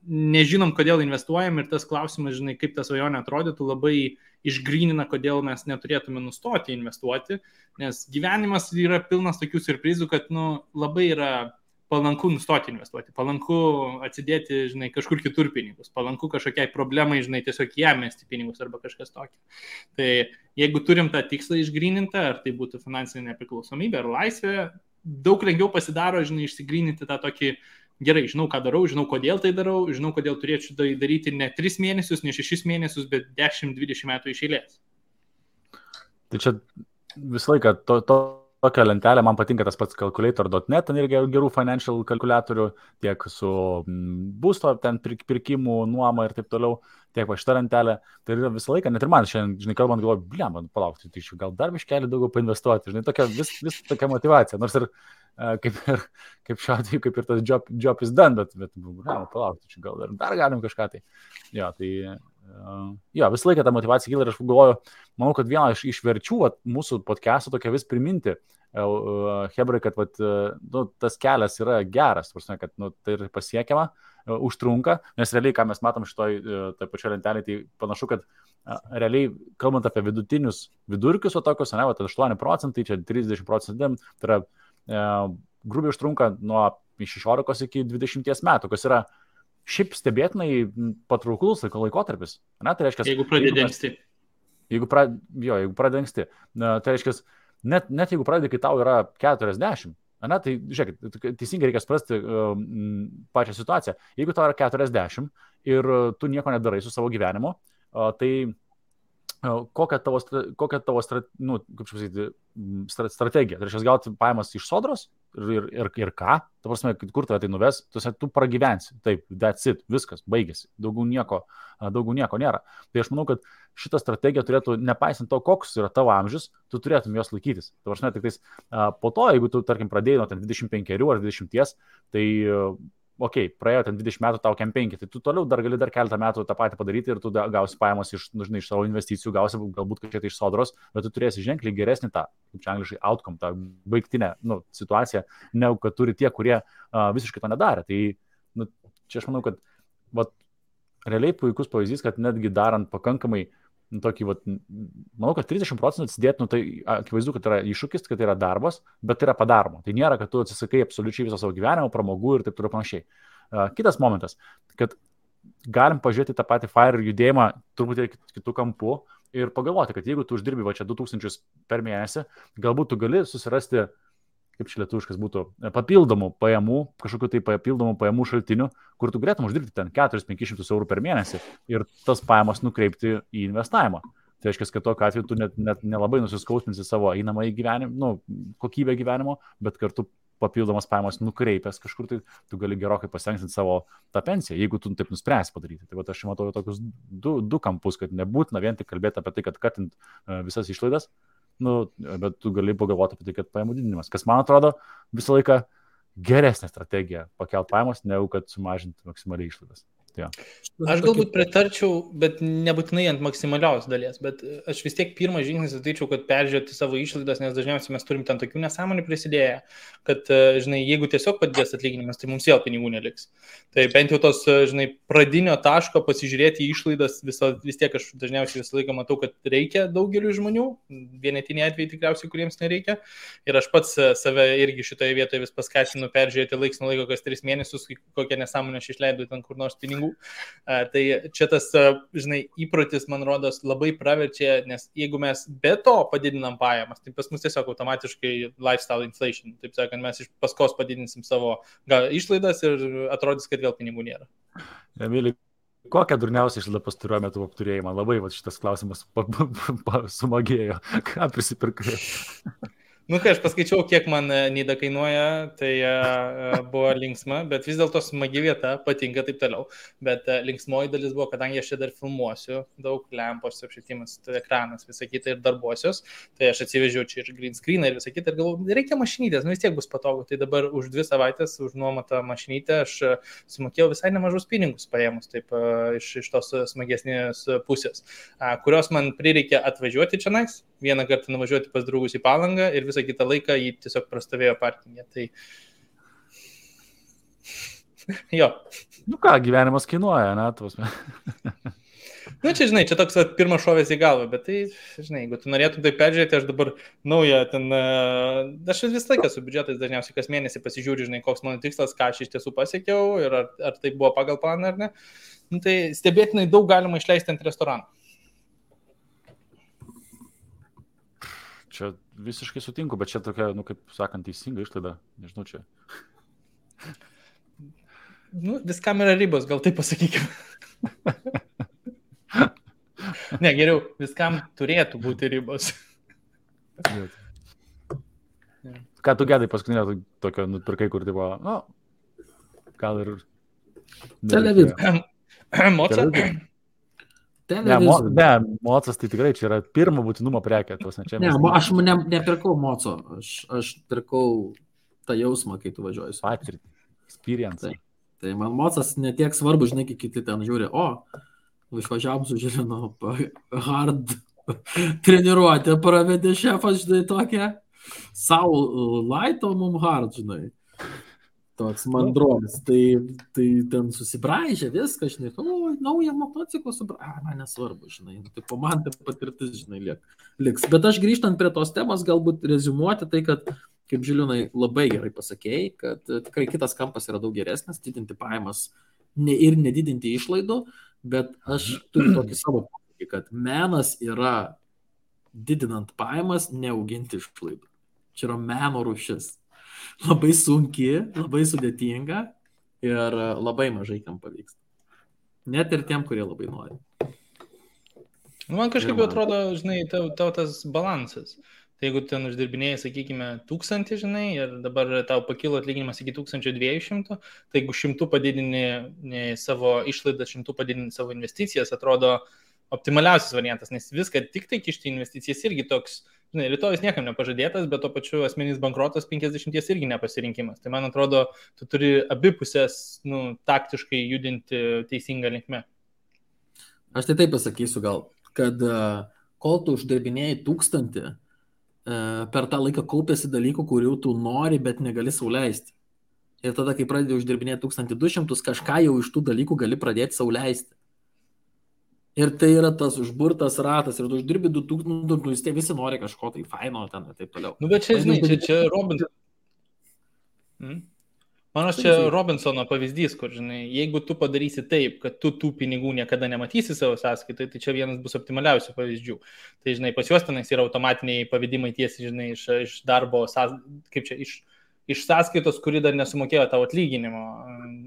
nežinom, kodėl investuojam ir tas klausimas, žinai, kaip ta svajonė atrodytų, labai išgrynina, kodėl mes neturėtume nustoti investuoti, nes gyvenimas yra pilnas tokių siurprizų, kad labai yra palanku nustoti investuoti, palanku atsidėti, žinai, kažkur kitur pinigus, palanku kažkokiai problemai, žinai, tiesiog ją mesti pinigus arba kažkas tokio. Tai jeigu turim tą tikslą išgrynintą, ar tai būtų finansinė nepriklausomybė ar laisvė, daug lengviau pasidaro, žinai, išsigryninti tą tokį, gerai, žinau, ką darau, žinau, kodėl tai darau, žinau, kodėl turėčiau tai daryti ne 3 mėnesius, ne 6 mėnesius, bet 10-20 metų iš eilės. Tai čia visą laiką tokia lentelė, man patinka tas pats calculator.net, ten irgi gerų financial kalkuliatorių, tiek su būsto, ten pirkimų, nuoma ir taip toliau, tiek va šitą lentelę. Tai yra visą laiką, net ir man šiandien, žinai, kalbant, galvoju, man palaukti, tai gal dar biškelį daugiau painvestuoti, žinai, tokia vis tokia motivacija, nors ir kaip šiuo atveju, kaip ir tas job is done, bet palaukti, gal dar galim kažką tai. Jo, visą laiką ta motivacija kyla ir aš galvoju, manau, kad viena iš verčių mūsų podcast'o tokia vis priminti, hebrai, kad tas kelias yra geras, kad tai yra pasiekiama, užtrunka, nes realiai, ką mes matom šitoj pačioje lentelėje, tai panašu, kad realiai, kalbant apie vidutinius vidurkius, tokius, 8%, čia 30%, tai yra grubiai užtrunka nuo 16 iki 20 metų, kas yra šiaip stebėtinai patrauklus laikotarpis. Tai reiškia, jeigu pradedi anksti. Jeigu pradedi anksti. Tai reiškia, net jeigu pradedi, kai tau yra 40, tai žiūrėkit, teisingai reikia suprasti pačią situaciją. Jeigu tau yra 40 ir tu nieko nedarai su savo gyvenimu, tai kokia tavo strategija? Tai reiškia, gauti pajamas iš sodros ir ką? Ta prasme, kur tave tai nuves? Tu pragyvensi. Taip, that's it, viskas, baigėsi. Daugiau nieko nėra. Tai aš manau, kad šitą strategiją turėtų, nepaisant to, koks yra tavo amžius, tu turėtum jos laikytis. Ta prasme, tik tais po to, jeigu tu, tarkim, pradėjai nuo 25 ar 20, tai praėjo ten 20 metų, tau 5, tai tu toliau dar gali dar keletą metų tą patį padaryti ir tu gausi pajamas iš savo investicijų, gausi galbūt kažkiek iš sodros, bet tu turėsi ženkliai geresnį tą, kaip čia angliškai, outcome, tą baigtinę situaciją, negu kad turi tie, kurie visiškai to nedarė. Tai čia aš manau, kad realiai puikus pavyzdys, kad netgi darant pakankamai tokį, manau, kad 30% atsidėti, tai akivaizdu, kad yra iššūkis, kad tai yra darbas, bet tai yra padaroma. Tai nėra, kad tu atsisakai absoliučiai viso savo gyvenimo, pramogų ir taip toliau panašiai. Kitas momentas, kad galim pažiūrėti tą patį FIRE judėjimą truputį kitų kampų ir pagalvoti, kad jeigu tu uždirbi čia 2000 per mėnesį, galbūt tu gali susirasti, kaip čia lietuviškas būtų, papildomų pajamų, kažkokių tai papildomų pajamų šaltinių, kur tu galėtum uždirbti ten 400-500 eurų per mėnesį ir tas pajamas nukreipti į investavimą. Tai reiškia, kad tokiu atveju tu net nelabai nusiskausminsi savo einamąjį gyvenimą, kokybę gyvenimo, bet kartu papildomas pajamas nukreipęs kažkur, tai tu gali gerokai pasitenksinti savo tą pensiją, jeigu tu taip nuspręsi padaryti. Tai aš matau tokius du kampus, kad nebūtina vien tik kalbėti apie tai, kad katint visas išlaidas, bet tu gali pagalvoti apie tai, kad pajamų didinimas, kas man atrodo visą laiką geresnė strategija pakelt pajamas, negu kad sumažinti maksimaliai išlaidas. Ja. Aš galbūt pritarčiau, bet nebūtinai ant maksimalios dalies, bet aš vis tiek pirmą žingsnį sakyčiau, kad peržiūrėti savo išlaidas, nes dažniausiai mes turim ten tokių nesąmonių prisidėję, kad, žinai, jeigu tiesiog padidės atlyginimas, tai mums vėl pinigų neliks. Tai bent jau tos, žinai, pradinio taško pasižiūrėti į išlaidas, vis tiek aš dažniausiai visą laiką matau, kad reikia daugeliu žmonių, vienetiniai atvejai tikriausiai, kuriems nereikia. Ir aš pats save irgi šitoje vietoje vis paskatinu peržiūrėti laiks nuo laiko, kas 3 mėnesius, kokią nesąmonę aš išleidau ten kur nors pinigų pinigų. Tai čia tas, žinai, įprotis, man rodos, labai praverčia, nes jeigu mes be to padidinam pajamas, tai pas mus tiesiog automatiškai lifestyle inflation. Taip sakant, mes iš paskos padidinsim savo išlaidas ir atrodys, kad vėl pinigų nėra. Emili, kokią durniausią išlaidą pastaruoju metu apturėjai? Man labai šitas klausimas sumagėjo. Ką prisipirkai? Nu, kai aš paskaičiau, kiek man Nida kainuoja, tai buvo linksma, bet vis dėlto smagi vieta, patinka taip toliau. Bet linksmoji dalis buvo, kadangi aš čia dar filmuosiu, daug lempos, apšvietimas, ekranas, visą kitą ir darbuosios, tai aš atsivežiau čia ir green screeną ir visą kitą ir galvoju, reikia mašinytės, vis tiek bus patogu. Tai dabar už 2 savaitės, už nuomotą mašinytę, aš sumokėjau visai nemažus pinigus paėmus, taip iš tos smagesnės pusės, kurios man prireikė atvažiuoti čia nais, vieną kartą nuvažiuoti pas draugus į Palangą ir visą kitą laiką jį tiesiog prastovėjo parkingė. Tai jo. Nu ką, gyvenimas kainuoja, ne? Nu čia, žinai, čia toks pirmas šovės į galvą, bet tai, žinai, jeigu tu norėtum tai peržiūrėti, aš dabar naują ten, aš visą laiką su biudžetais dažniausiai kas mėnesį pasižiūriu, žinai, koks mano tikslas, ką aš iš tiesų pasiekiau ir ar tai buvo pagal planą ar ne. Nu, tai stebėtinai daug galima išleisti ant restoranų. Čia visiškai sutinku, bet čia tokia, nu, kaip sakant, teisinga išlaida. Nežinau, čia. Nu, viskam yra ribos, gal taip pasakykime. Ne, geriau, viskam turėtų būti ribos. Ką tu Gedai paskutinio tokio nupirkai, kur tai buvo, nu, gal ir... Televizija. Moca? Ne, mocas tai tikrai čia yra pirmo būtinumo prekė. Aš nepirkau moco, aš pirkau tą jausmą, kai tu važiuoji. Patirtį, experience. Tai man mocas netiek svarbu, žinai, kai kiti ten žiūri, išvažiavom su Žilinu, hard treniruotę pravedė šefas, žinai, tokia, savo laito mum hard, žinai. Toks mandronis, tai ten susibraižė viską, žinai, naują motociklą man nesvarbu, žinai, tai po man tai patirtis, žinai, liks. Bet aš grįžtant prie tos temos, galbūt reziumuoti tai, kad, kaip Žilinai labai gerai pasakėjai, kad tikrai kitas kampas yra daug geresnis, didinti pajamas ir nedidinti išlaidų, bet aš turiu tokį savo požiūrį, kad menas yra didinant pajamas, neauginti išlaidų. Čia yra meno rūšis. Labai sunki, labai sudėtinga ir labai mažai kam pavyksta. Net ir tiem, kurie labai nori. Man kažkaip atrodo, žinai, tau tas balansas. Tai jeigu ten uždirbinėjai, sakykime, 1000, žinai, ir dabar tau pakilo atlyginimas iki 1200, tai jeigu 100 padidini savo išlaidą, 100 padidini savo investicijas, atrodo optimaliausias variantas, nes viską tik tai kišti investicijas irgi toks, žinai, rytojus niekam nepažadėtas, bet to pačiu asmeninis bankrotas 50 irgi nepasirinkimas. Tai man atrodo, tu turi abipusės, taktiškai judinti teisingą linkme. Aš tai taip pasakysiu gal, kad kol tu uždirbinėjai 1000, per tą laiką kaupėsi dalykų, kurių tu nori, bet negali sau leisti. Ir tada, kai pradedi uždirbinėti 1200, kažką jau iš tų dalykų gali pradėti sau leisti. Ir tai yra tas užburtas ratas, ir tu uždirbi 2000, visi nori kažko tai faino ten ir taip toliau. Nu, bet čia, žinai, čia Robinson. Manos, čia Robinsono pavyzdys, kur, žinai, jeigu tu padarysi taip, kad tu tų pinigų niekada nematysi savo sąskaitai, tai čia vienas bus optimaliausių pavyzdžių. Tai, žinai, pas juos tenais yra automatiniai pavedimai tiesiai, žinai, iš darbo, kaip čia, iš sąskaitos, kuri dar nesumokėjo tavo atlyginimo,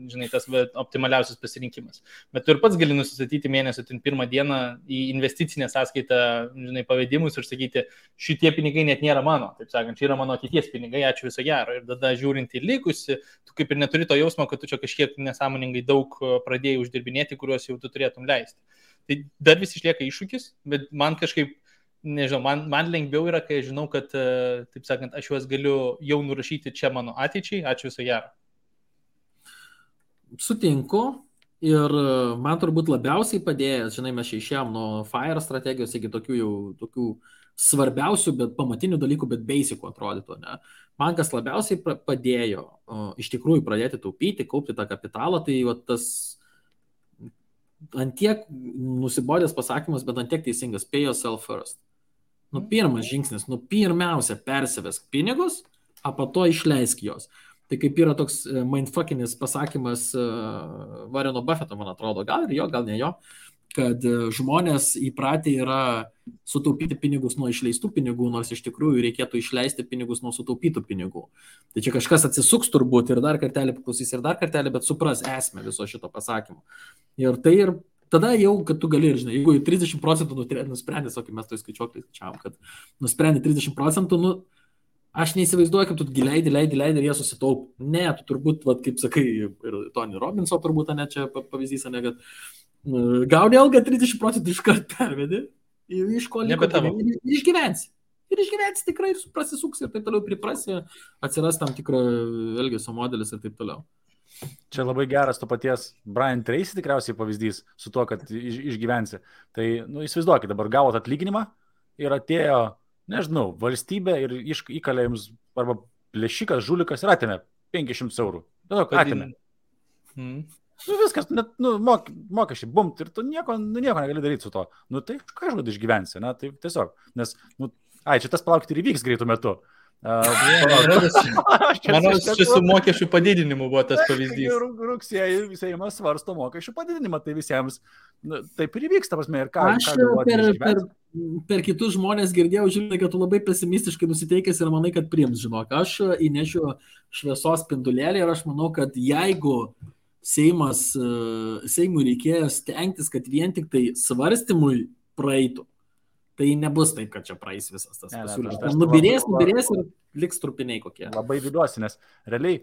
žinai, tas optimaliausias pasirinkimas. Bet tu ir pats gali nusistatyti mėnesio pirmą dieną į investicinę sąskaitą, žinai, pavedimus ir sakyti, šitie pinigai net nėra mano, taip sakant, čia yra mano ateities pinigai, ačiū viso gero. Ir tada žiūrint į likusi, tu kaip ir neturi to jausmo, kad tu čia kažkiek nesąmoningai daug pradėjai uždirbinėti, kuriuos jau tu turėtum leisti. Tai dar vis išlieka iššūkis, bet man kažkaip nežinau, man lengviau yra, kai žinau, kad, taip sakant, aš juos galiu jau nurašyti čia mano ateičiai, ačiū viso gero. Sutinku ir man turbūt labiausiai padėjęs, žinai, mes išėjom nuo FIRE strategijos iki tokių svarbiausių, bet pamatinių dalykų, bet basicų atrodytų, ne? Man kas labiausiai padėjo iš tikrųjų pradėti taupyti, kaupti tą kapitalą, tai tas antiek nusibodęs pasakymas, bet antiek teisingas, pay yourself first. Pirmas žingsnis, pirmiausia persivesk pinigus, o po to išleisk jos. Tai kaip yra toks mindfuckinis pasakymas Warreno Buffetto, man atrodo, gal ir jo, gal ne jo, kad žmonės įpratę yra sutaupyti pinigus nuo išleistų pinigų, nors iš tikrųjų reikėtų išleisti pinigus nuo sutaupytų pinigų. Tai čia kažkas atsisuks turbūt ir dar kartelį paklausys ir dar kartelį, bet supras esmę viso šito pasakymo. Ir tai ir tada jau, kad tu gali, žinai, jeigu 30% nusprendė, kaip mes to skaičiuoklį skaičiavom, kad nusprendė 30%, aš neįsivaizduoju, kaip tu leidi ir jie susitaup. Ne, tu turbūt, kaip sakai, ir Tony Robbinso turbūt, ne, čia pavyzdys, ne, kad gauni algą 30% iškart pervedi, iš ko liko ir išgyvensi. Ir išgyvensi tikrai ir prasisuks ir taip toliau priprasi, atsiras tam tikro elgesio modelis ir taip toliau. Čia labai geras to paties Brian Tracy tikriausiai pavyzdys su tuo, kad išgyvensi. Tai, įsivaizduokit, dabar gavot atlyginimą ir atėjo, nežinau, valstybė ir įkalė jums arba plėšikas, žulikas ir atėmė 500 eurų. Tiesiog atėmė. Viskas, mokesčiai, bumt, ir tu nieko negali daryti su to. Tai kažkada išgyvensi, tai tiesiog, nes, čia tas palaukti ir įvyks greitų metu. Manau, čia su mokesčių padidinimu buvo tas pavyzdys. Rugsėjai Seimas svarsto mokesčių padidinimą, tai visiems taip ir įvyks, ta prasme, ir ką. Aš per kitus žmonės girdėjau, žinai, kad tu labai pesimistiškai nusiteikęs ir manai, kad priims, žinok. Aš įnešiu šviesos spindulėlį ir aš manau, kad jeigu Seimui reikės stengtis, kad vien tik tai svarstymui praeitų, tai nebus taip, kad čia praeis visas tas pasiūlymas. Nubirės ir liks trupiniai kokie. Labai viduosi, nes realiai,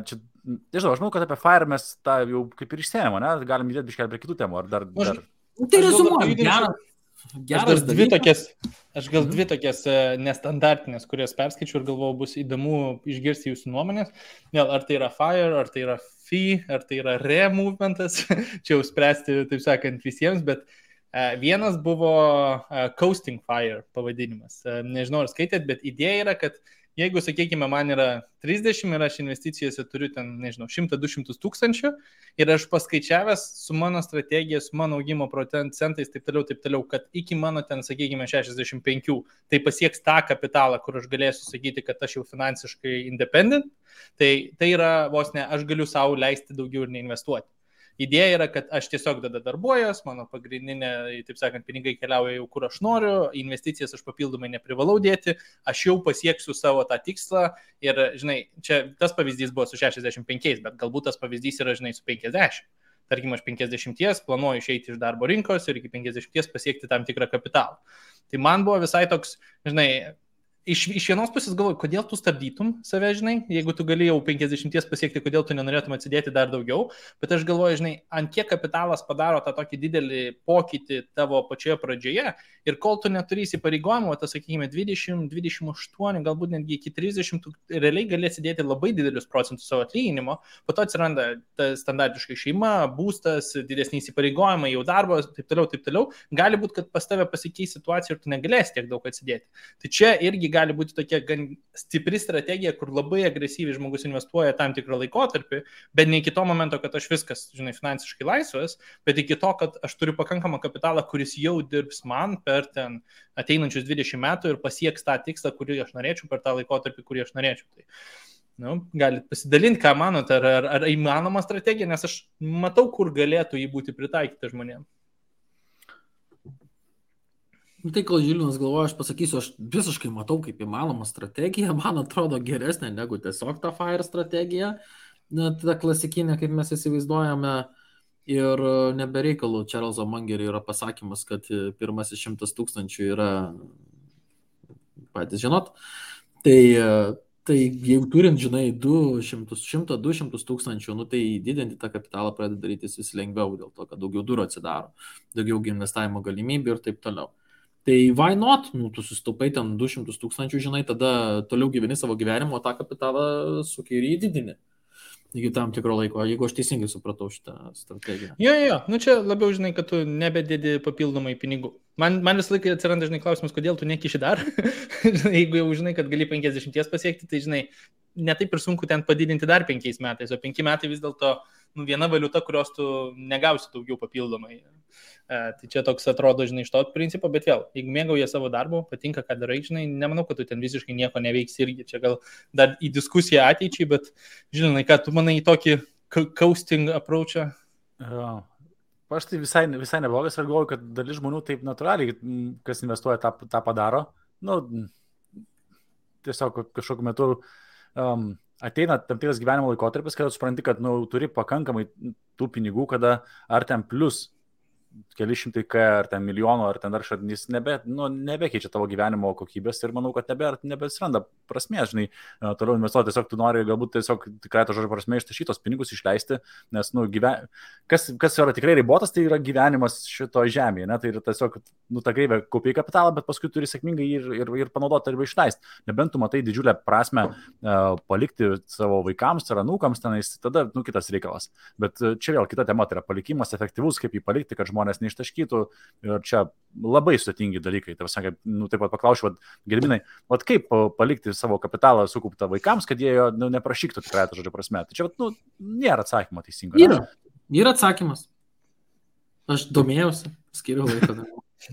čia, nežinau, aš manau, kad apie FIRE mes tą jau kaip ir išsėmėm, ne? Galim judėti biškelį prie kitų temų, ar dar... Tai rezumuojam, geras. Aš gal dvi tokias nestandartinės, kurias perskaičiu ir galvoju, bus įdomu išgirsti jūsų nuomonės. Ar tai yra FIRE, ar tai yra FI, ar tai yra RE movementas, čia jau spręsti, taip sakant, visiems, bet vienas buvo Coasting FIRE pavadinimas. Nežinau, ar skaitėt, bet idėja yra, kad jeigu, sakykime, man yra 30 ir aš investicijose turiu ten, nežinau, 100-200 tūkstančių ir aš paskaičiavęs su mano strategija, su mano augimo procentais, taip toliau, kad iki mano ten, sakykime, 65, tai pasieks tą kapitalą, kur aš galėsiu sakyti, kad aš jau finansiškai independent, tai yra vos ne, aš galiu savo leisti daugiau ir neinvestuoti. Idėja yra, kad aš tiesiog tada darbuojuos, mano pagrindinė, taip sakant, pinigai keliauja jau kur aš noriu, investicijas aš papildomai neprivalau dėti, aš jau pasieksiu savo tą tikslą ir, žinai, čia tas pavyzdys buvo su 65, bet galbūt tas pavyzdys yra, žinai, su 50. Tarkim, aš 50 planuoju išeiti iš darbo rinkos ir iki 50 pasiekti tam tikrą kapitalą. Tai man buvo visai toks, žinai, iš vienos pusės galvoju, kodėl tu stabdytum save, žinai, jeigu tu gali jau 50 pasiekti, kodėl tu nenorėtum atsidėti dar daugiau, bet aš galvoju, žinai, ant kiek kapitalas padaro tą tokį didelį pokytį tavo pačioje pradžioje ir kol tu neturi įsipareigojimo, tas, sakykime, 20, 28, galbūt netgi iki 30, tu realiai gali atsidėti labai didelius procentus savo atlyginimo, po to atsiranda standartiškai šeima, būstas, didesni įsipareigojimai, jau darbas, taip toliau, gali būti, kad pas tave pasikeis situacija ir tu negalėsi tiek daug atsidėti. Tai čia irgi gali būti tokia gan stipri strategija, kur labai agresyviai žmogus investuoja tam tikrą laikotarpį, bet ne iki to momento, kad aš viskas, žinai, finansiškai laisvas, bet iki to, kad aš turiu pakankamą kapitalą, kuris jau dirbs man per ten ateinančius 20 metų ir pasieks tą tikslą, kurį aš norėčiau per tą laikotarpį, kurį aš norėčiau. Tai, galit pasidalinti, ką manote, ar įmanoma strategija, nes aš matau, kur galėtų jį būti pritaikyta žmonėms. Tai, kol Žilinas galvoja, aš pasakysiu, aš visiškai matau, kaip įmanoma strategija, man atrodo geresnė negu tiesiog ta FIRE strategija, ta klasikinė, kaip mes įsivaizduojame, ir nebereikalų Čarlzo Mangerio yra pasakymas, kad pirmasis 100 tūkstančių yra, patys žinot, tai jeigu turint, žinai, 100-200 tūkstančių, tai didinti tą kapitalą pradeda darytis vis lengviau, dėl to, kad daugiau durų atsidaro, daugiau investavimo galimybių ir taip toliau. Tai why not? Tu susitaupai ten 200 tūkstančių, žinai, tada toliau gyveni savo gyvenimo, tą kapitalą suki ir įdidini. Iki tam tikro laiko, jeigu aš teisingai supratau šitą strategiją. Jo, čia labiau, žinai, kad tu nebedėdi papildomai pinigų. Man visą laiką atsiranda, žinai, klausimas, kodėl tu nekiši dar. Jeigu jau žinai, kad gali 50 pasiekti, tai, žinai, netaip ir sunku ten padidinti dar 5 metais, o 5 metai vis dėlto viena valiuta, kurios tu negausi daugiau papildomai. Tai čia toks atrodo, žinai, iš to principo, bet vėl, jeigu mėgauja savo darbo, patinka, ką darai, žinai, nemanau, kad tu ten visiškai nieko neveiksi irgi. Čia gal dar į diskusiją ateičiai, bet, žinai, ką tu manai į tokį coasting approachą? Aš tai visai neblogas ir galvoju, kad dalis žmonių taip natūraliai, kas investuoja, tą padaro. Nu, tiesiog kažkokiu metu ateina tam tikras gyvenimo laikotarpis, kada supranti, kad turi pakankamai tų pinigų, kada ar ten plus keli šimtai K, ar ten milijonų, ar ten dar šadnys, nebekeičia tavo gyvenimo kokybės ir manau, kad nebesiranda prasmės, žinai, toliau investuoti, tiesiog tu nori galbūt tiesiog tikrai to žodžio prasme ištašytos pinigus išleisti, nes, kas yra tikrai ribotas, tai yra gyvenimas šito žemėje, ne, tai yra tiesiog, ta kreivė kaupiai kapitalą, bet paskui turi sėkmingai ir panaudoti arba išleisti. Nebent tu matai didžiulę prasme palikti savo vaikams ar anūkams tenais, tada, kitas reikalas. Bet čia vėl kita tema, tai yra palikimas efektyvus, kaip jį palikti, kad žmonės neištaškytų ir čia labai sudėtingi dalykai. Taip pat paklausiu, Gediminai, kaip palikti savo kapitalą sukauptą vaikams, kad jie jo neprašyktų tikrai to žodžio prasme. Tai čia nėra atsakymo teisingo. Yra atsakymas. Aš domėjausi, skiriu laiko.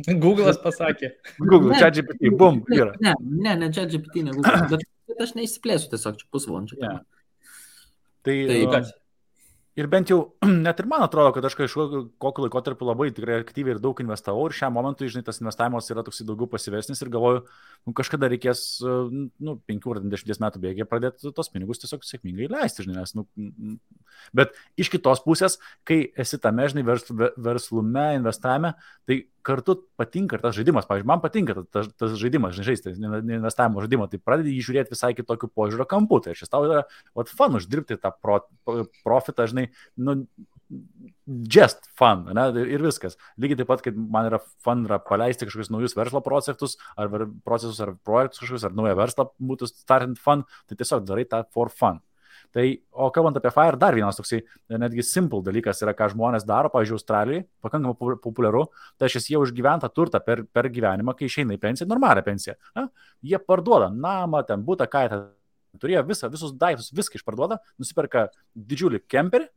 Google'as pasakė. Google, ChatGPT, bum, yra. Ne, ChatGPT, ne Google, bet aš neįsiplėsiu tiesiog čia pusvalandžio. Yeah. Tai ir bent jau, net ir man atrodo, kad aš kokiu laikotarpiu labai tikrai aktyviai ir daug investavau ir šiam momentui, žinai, tas investavimas yra toks daugiau pasyvesnis ir galvoju, kažkada reikės 5 ar 10 metų bėgyje pradėti tos pinigus tiesiog sėkmingai leisti, žinai, nes, bet iš kitos pusės, kai esi tame, žinai, verslume, investavime, tai kartu patinka ir tas žaidimas, pavyzdžiui, man patinka tas žaidimas, žinai, žaisti, investavimo žaidimą, tai pradedi jį žiūrėti visai kitokiu požiūrio kampu, tai šis tau yra fun uždirbti tą profitą, žinai, just fun, ne, ir viskas. Lygiai taip pat, kaip man yra fun paleisti kažkokius naujus verslo procesus, ar projektus kažkokius, ar naują verslą būtų startant fun, tai tiesiog darai tą for fun. Tai, o kalbant apie FIRE, dar vienas toksai netgi simple dalykas yra, ką žmonės daro, pavyzdžiui, Australijai, pakankamai populiaru, tai jie užgyventą turtą per gyvenimą, kai išeina į pensiją, normalią pensiją. Na, jie parduoda namą, ten butą, kaitą, turėjo visus daiktus, viską išparduoda, nusiperka didžiulį kemperį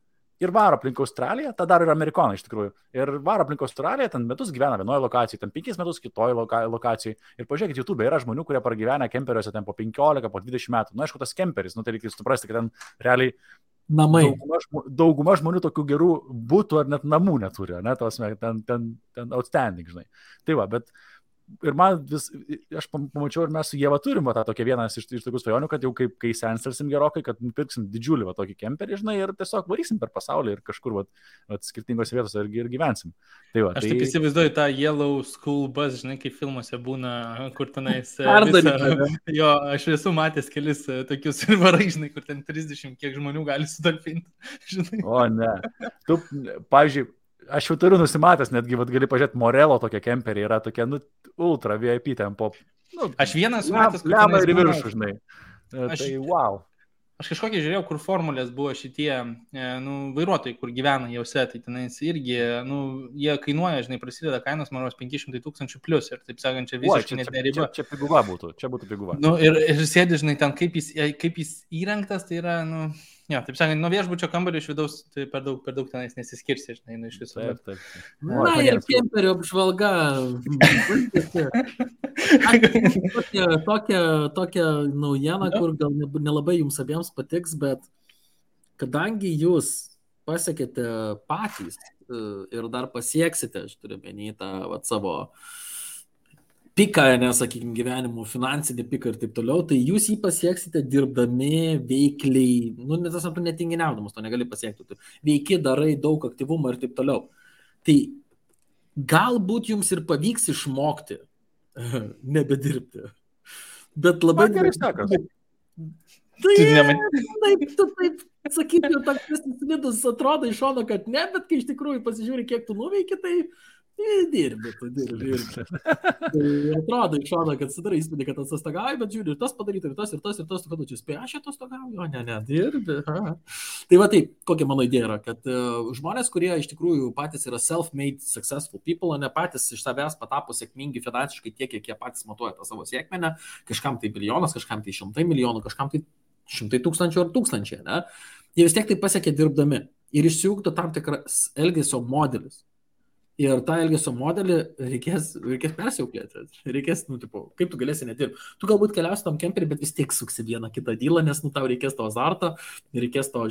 ir varo aplink Australiją, tą daro ir amerikonai iš tikrųjų, ir varo aplink Australiją, ten metus gyvena vienoje lokacijoje, ten 5 metus kitoje lokacijoje, ir pažiūrėkit, YouTube yra žmonių, kurie pragyvena kemperiuose ten po 15, po 20 metų, aišku, tas kemperis, tai reikia suprasti, kad ten realiai namai. Dauguma žmonių tokių gerų būtų ar net namų neturi, ne, ten outstanding, žinai. Tai va, bet ir man aš pamačiau ir mes su Ieva turim tą tokią vieną iš tokių svajonių, kad jau kai senstersim gerokai, kad nupirksim didžiulį tokį kemperį, žinai, ir tiesiog varysim per pasaulį ir kažkur skirtingose vietose ir gyvensim. Tai va, aš taip įsivaizduoju tą Yellow School Bus, žinai, kaip filmuose būna, kur tenais jo, aš esu matęs kelis tokius varai, žinai, kur ten 30 kiek žmonių gali sutalpinti, žinai. O ne, tu, pavyzdžiui, aš jau turiu nusimatęs, netgi gali pažiūrėti, Morelo tokia kemperį yra tokia, ultra VIP ten po... Aš vienas matęs, kur lemą ir viršų, žinai. Tai wow. Aš kažkokį žiūrėjau, kur formulės buvo šitie vairuotojai, kur gyvena jausia, tai tenais irgi, jie kainuoja, žinai, prasideda kainos, man 500 000 plus ir taip sakant, čia visiškai net neriba. Čia piguva būtų, čia būtų piguva. Ir sėdi, žinai, ten kaip jis įrengtas, tai yra, jo, taip sakant, nuo viešbučio kambario iš vidaus tai per daug tenais nesiskirsi, žinai, iš viso. Taip. Na, ir kemperio apžvalga. Tokia naujiena, kur gal nelabai jums abiems patiks, bet kadangi jūs pasiekėte patys ir dar pasieksite, aš turiu menį tą savo piką, nesakykime, gyvenimo finansinį piką ir taip toliau, tai jūs jį pasieksite dirbdami veikliai, netinginiaudamas, to negali pasiekti, tu veiki, darai daug aktyvumo ir taip toliau. Tai galbūt jums ir pavyks išmokti nebedirbti. Bet labai gerai sakas. Taip, sakyti, toks vidus atrodo iš šono, kad ne, bet kai iš tikrųjų pasižiūri, kiek tu nuveiki, tai dirbi. Tai atrodo iš šono, kad sudarai įspūdį, kad atostogauji, bet žiūri, ir tas padaryti, ir tas, kad tu čia spėjai, aš atostogauju, o ne, dirbi. Tai va taip, kokia mano idėja yra, kad žmonės, kurie iš tikrųjų patys yra self-made successful people, o ne patys iš savęs patapo sėkmingi finansiškai tiek, kiek jie patys matuoja tą savo sėkmę, kažkam tai milijonas, kažkam tai 100 milijonų, kažkam tai 100 000 ar 1000, ne? Jie vis tiek tai pasiekė dirbdami. ir išsiugdo tam tikras elgesio modelis. Ir tą elgesio modelį reikės persiauklėti. Reikės, kaip tu galėsi nedirbti. Tu galbūt keliausi tam kemperį, bet vis tiek suksi vieną kitą dylą, nes, tau reikės to azarto, reikės to,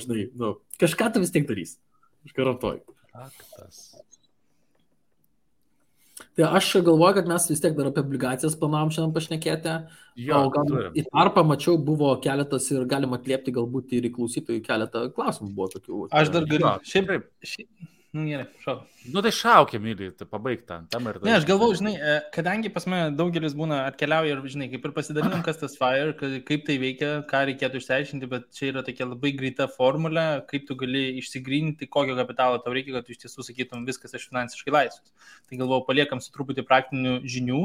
kažką tu vis tiek darys. Aš garantuoju. Faktas. Tai aš galvoju, kad mes vis tiek dar apie obligacijas planavom šiandien pašnekėti. Jo, o gal į tarpą mačiau, buvo keletas ir galima atliepti galbūt ir į klausytojų keletą klausimų buvo tokių. Aš dar galiu. Šiaip. Gerai, šau. Tai šaukia, myliai, tai pabaigta. Ne, aš galvoju, kadangi pas mane daugelis būna atkeliauja ir, kaip ir pasidalinom, kas tas FIRE, kaip tai veikia, ką reikėtų išsiaiškinti, bet čia yra tokia labai greita formulė, kaip tu gali išsigryninti, kokio kapitalo tau reikia, kad tu iš tiesų sakytum viskas aš finansiškai laisvas. Tai galvoju, paliekam su truputį praktinių žinių